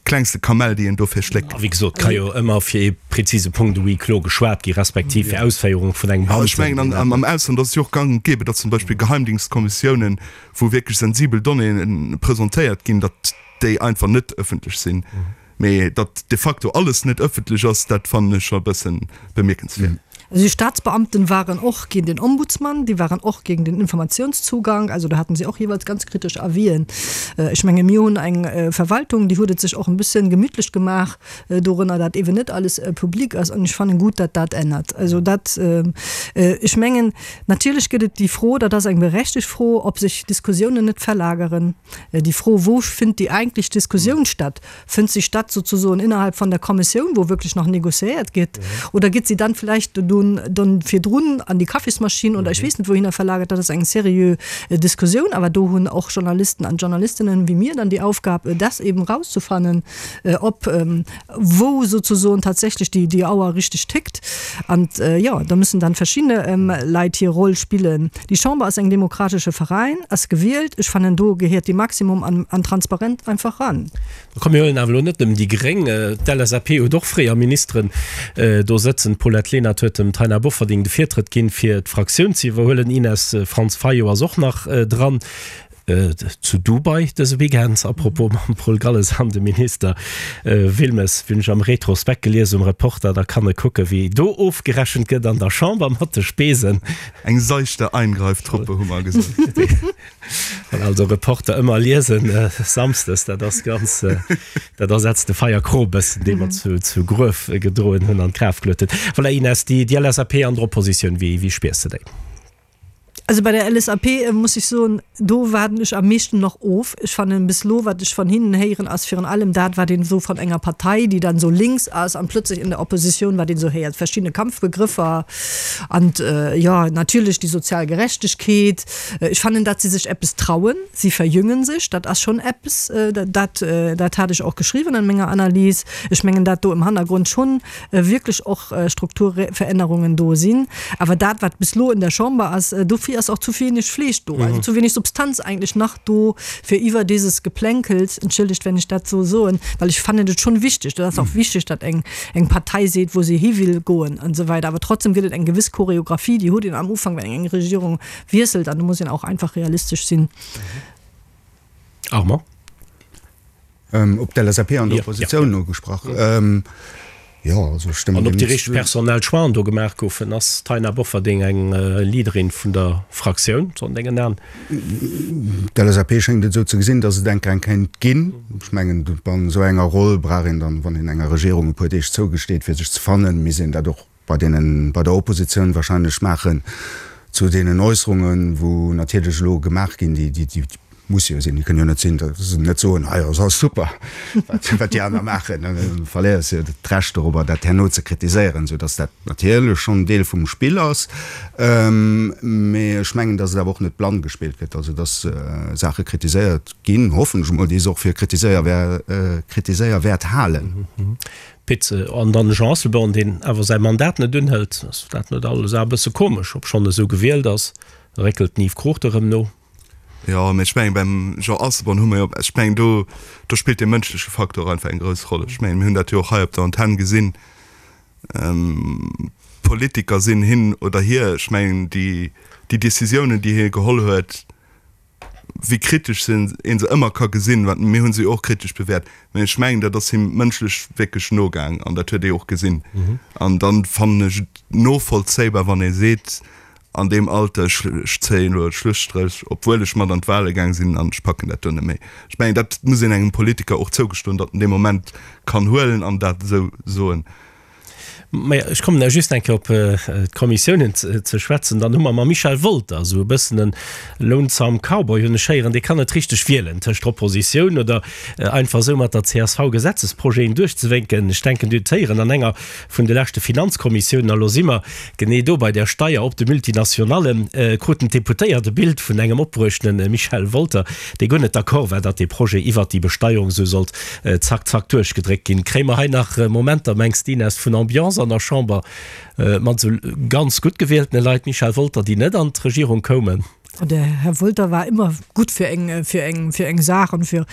klengste Kamell, déi een dofir schléckt. A wéi gesot, ka jo ëmmer fir ee prezise Punkt e Huis clos geschwat gi respektiv fir Ausféierung vun engem Beamten. Ech mengen, an, am Ausland ass et jo och gang und gäbe, datt zum Beispill Geheimdienstkommissiounen, wou wierklech sensibel Donnéeën presentéiert ginn, datt déi einfach net ëffentlech sinn. Mee datt de facto alles net ëffentlech ass, dat fannen ech scho e bësse bemierkenswäert. Also déi Staatsbeamten waren och géint den Ombudsmann, déi waren och géint den Informationszugang, also do haten si och jeeweils ganz kritesch Avisen. Ech menge mir hunn eng Verwaltung, déi huet et sech och e bëssen gemütlech gemaach dorënner, dat eeben net alles public ass an ech fannen gutt, datt dat ännert. Also dat, ech mengen natierlech gëtt et déi Fro, dat ass eng berechtegt Fro, ob sech Diskussiounen net verlageren. Déi Fro, Wou finnt déi eigentlech Diskussioun statt? Fënnt se statt sozusoen innerhalb von der Kommissioun, wou wierklech nach négociéiert gétt, oder gétt se dann vläicht dann virdrun an déi Kaffismaschinn oder ech weess net wouhinner verlagert? Dat ass eng seriö Diskussioun, awer do hunn och Journalisten an Journalistinnen wéi mir dann déi Aufgab, dat eben erauszefannen, ob wou sozusoen tatsächlech déi, déi Auer richteg tickt. An, jo, da müssen dann verschidde Leit hir Roll spillen. Déi Chamber ass eng demokratesche Veräin, ass gewielt. Ech fannen, do gehéiert dee Maximum an, an Transparent einfach ran. Komm, mir huelen awer elo net nëmmen déi Gréng. D'LSAP huet och fréier Ministeren do sëtzen. D'Paulette Lenert huet dem Taina Bofferding de Virtrëtt ginn, fir d'Fraktioun ze iwwerhuelen. Ines Frantz Fayot ass och nach dran. Zu Dubai dëse Weekend, à propos mam Paul Galles an dem Minister Wilmes, hunn ech am Retrospekt gelies um Reporter, da kann e kucke wéi do ofgerechent gëtt an der Chamber mat de Spesen. Eng seichte Eingreiftruppe hu mer gesot. Also Reporter ëmmer liesen samsdes, dat ass ganz, dat ersetzt de Feierkrop e bëssen, dee mer zu Gruef gedroen hunn an d'Graf geluet hunn. Voilà Ines, déi LSAP an der Oppositioun, wéi spiers de déi? Also bei der LSAP muss ech soen, do waarden ech am meeschten nach of. Ech fannen bis elo, wat ech van hinnen héieren, ass virun allem dat, wat een esou van enger Partei, déi dann esou links ass an plötzlich in der Opposition, wat een esou héiert, verschidde Kampfbegrëffer an, jo, natierlech déi sozial Gerechtegkeet. Ech fannen, datt si sech eppes trauen, si verjüngen sech, dat ass schonn eppes, dat, dat hat ech och geschriwwen an menger Analys. Ech mengen, dat do im Hannergrund schonn wierklech och Strukturverännerungen do sinn. Awer dat, wat bis elo in der Chamber ass, dofir ass och zu wenig Fleesch do, also zu wenig Substanz eigentlech nach do, fir iwwer dieses Geplänkels, entschëllegt, wenn ech dat esou soen, well ech fannen et schonn wichteg, dat ass och wichteg, datt eng, eng Partei seet, wou se hi will goen an esou weider, awer trotzdem gëtt et eng gewëss Choreographie, déi huet een am Ufank, wenn eng Regierung wiesselt, an do muss een auch einfach realistesch sinn. Armand. Op d'LSAP an der Oppositioun ugesprach. Jo, also ech stëmmen An ob déi richteg personell Choixen do gemaach goufen? Ass d'Taina Bofferding eng Leaderin vun der Fraktioun, sou an dengen Aen? D'LSAP schéngt et esou ze gesinn, datt et enker eng kéint ginn. Ech mengen, an esou enger Roll brauch een dann, wann een enger Regierung e puer Deeg zougesteet, fir sech ze fannen, misst een dat och. bei deenen, bei der Oppositioun wahrscheinlech maachen zu deenen Äusserungen, wou natierlech elo gemaach ginn, déi, déi, déi musse jo sinn, déi kënnen jo net sinn, datt se net soen, ah jo, ass alles super, wat, wat déi aner maachen. Da verléiers de jo d'Recht dorobber, dat herno ze kritiséieren, soudatt dat natierlech schonn Deel vum Spill ass. Mee ech mengen, datt et awer och net blann gespillt gëtt, also datt Saache kritiséiert ginn, hoffen ech emol, déi se och fir kritiséierwäert halen. Pit, An dann de Jean Asselborn, deen awer säi Mandat net unhëlt. Ass dat net alles awer e bësse komesch, obschonn e sou gewielt ass, réckelt den Yves Cruchten erëm no. Jo, mee ech mengen, beim Jean Asselborn hu mer jo, ech mengen, do, do spillt dee mënschleche Faktor einfach eng grouss Roll. Ech mengen, mir hunn dat jo och hei op der Antenn gesinn, Politiker sinn hin oder hier, ech mengen, déi, déi Décisiounen, déi hie geholl huet, wéi kritesch se een se ëmmer ka gesinn, wat mir hunn se jo och kritesch bewäert, mä ech mengen dat ass him mënschlech wierklech nogaang an dat huet ee och gesinn. An dann fannen ech et novollzéibar wann ee seet an deem Alter, ech ech zéien elo e Schlusstréch, obwuel ech mat an d'Wahle gaang sinn an ech packen dat do net méi. Ech mengen dat muss een engem Politiker och zougestoen, datt en dee Moment kann huelen an dat esou soen. Maja, ech kommen da just eng Kéier op d'Kommissiounen ze schwätzen. Dann hu mer mam Michel Wolter esou e bëssen en lonesome Cowboy, hunn ech héieren, dee kann net richteg wielen tëscht Oppositioun oder einfach esou mat der csv Gesetzesprojeten duerchzewénken. Ech denken, Dir hutt et héieren an enger vun de leschte Finanzkommissiounen, a lo si mer genee do bei där Steier op de Multinationallen, kruten d'Deputéiert e Bild vun engem opbruechtene Michel Wolter, dee guer net d'accord war, datt dee Projet iwwert déi Besteierung esou sollt Zack, zack duerchgedréckt ginn. Kréie mer hei nach Momenter, mengs de, Ines, vun Ambiance an der Chamber mat esou ganz gutt gewieltene Leit, Michel Wolter, déi net an d'Regierung koumen? De Här Wolter war ëmmer gutt fir eng, fir eng, fir eng Saach an fir,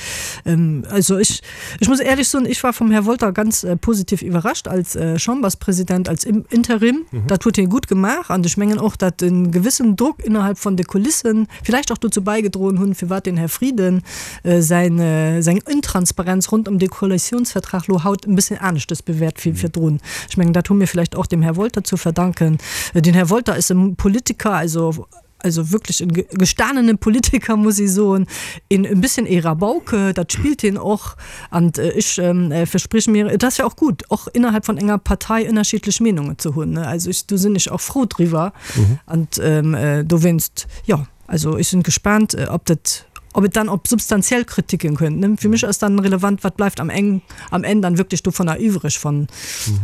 also ech, ech muss éierlech soen, ech war vum Här Wolter ganz positiv iwwerrascht als Chamberspräsident, als Interim. Dat huet hie gutt gemaach an ech mengen och, datt e gewëssen Drock innerhalb von de Kulissen villäicht och dozou bäigedroen hunn, firwat den Här Frieden säin, seng Intransparenz rond ëm de Koalitionsvertrag lo haut e bësschen aneschtes bewäert wéi virdrun. Ech mengen, dat hu mir vläicht och dem Här Wolter zu verdanken. Den Här Wolter ass e Politiker, also, also wierklech e gestanene Politiker, muss ee soen, een e bësschen ee Rabauke, dat spillt hien och. An ech versprich mir, et ass jo och gutt, och innerhalb von enger Partei ënnerschiddlech Meenungen ze hunn, ne. Also ech, do sinn ech och frou driwwer. An dowéinst, jo. Also ech sinn gespaant, ob dat, ob et dann op substantiell Kritiken kënnt, ne? Fir mech ass dann relevant, wat bleift am Eng, am Enn dann wierklech dovunner iwwreg von,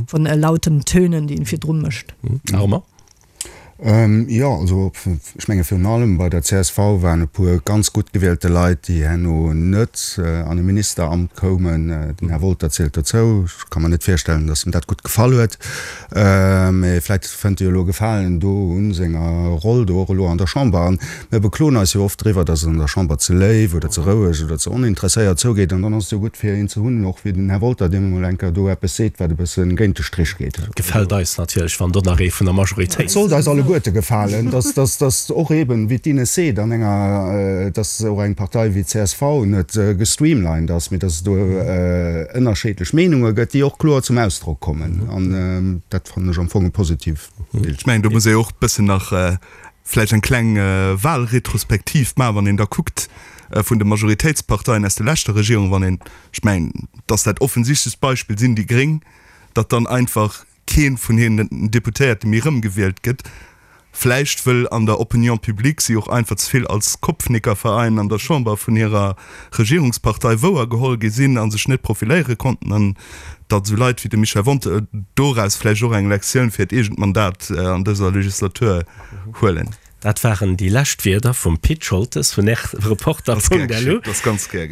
von lauten Tönen, déi en virdru mécht. Armand? Jo, also ech menge virun allem bei der csv waren e puer ganz gutt gewielte Leit, déi herno net an e Ministeramt koumen. Den Här Wolter zielt dozou. Ech ka mer net virstellen, datt em dat gutt gefall huet. Mee vläit fënnt e jo elo Gefalen do un senger Roll do och elo an der Chamber. An mir bekloen eis jo oft driwwer, datt et an der Chamber ze léif oder ze roueg oder ze oninteresséiert zougeet. An dann ass et jo gutt fir een ze hunn, och wéi den Här Wolter, deen emol eng Kéier do eppes seet, wat e bësse géint de Strich geet. Et gefält eis natierlech, wann do nach ee vun der Majoritéit. Et sollt eis alleguerte gefalen, datt, datt, datt och eeben, wéi d'Ines seet, an enger, datt och eng Partei wéi d'CSV net gestreamlined ass, mee datt et do ënnerscheedlech Meenunge gëtt, déi och kloer zum Ausdrock kommen. An dat fannen ech am Fong e positiv Bild. Ech mengen, do muss ee och e bëssen nach vläicht eng kleng Wahlretrospektiv maachen, wann een da kuckt vun de Majoritéitsparteien aus der leschter Regierung, wann een, ech mengen, dass dat offensichtlechst Beispill sinn déi Gréng, datt dann einfach kee vun hinnen Deputéierte méi erëmgewielt gëtt, vläicht wëll an der Opinion publique si och einfach ze vill als Kopfnickerverein an der Chamber vun hirer Regierungspartei wouergeholl gi sinn a sech net profiléiere konnten an datt esou Leit wéi de Michel Wonter doraus vläicht och eng Lektioun fir hiert eegent Mandat an dëser Legislatur huelen. Dat waren déi lescht Wierder vum Pit Scholtes vun rtreporter.lu.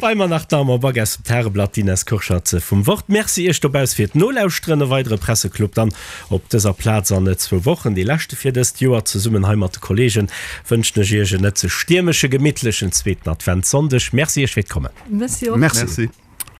Bei mer nach d'Armand Back aus dem Tageblatt, d'Ines Kurschat vum Wort. Merci Iech dobauss fir d'Nolauschteren. E weidere Presseclub dann op dëser Plaz an zwou Wochen, dee leschte fir dëst Joer. Zesummen hei mat de Kollegen wënschen ech Iech en net ze stiermesche, gemittlechen zweeten Adventssonndeg. Merci Iech fir d'Kommen. Merci och. Merci.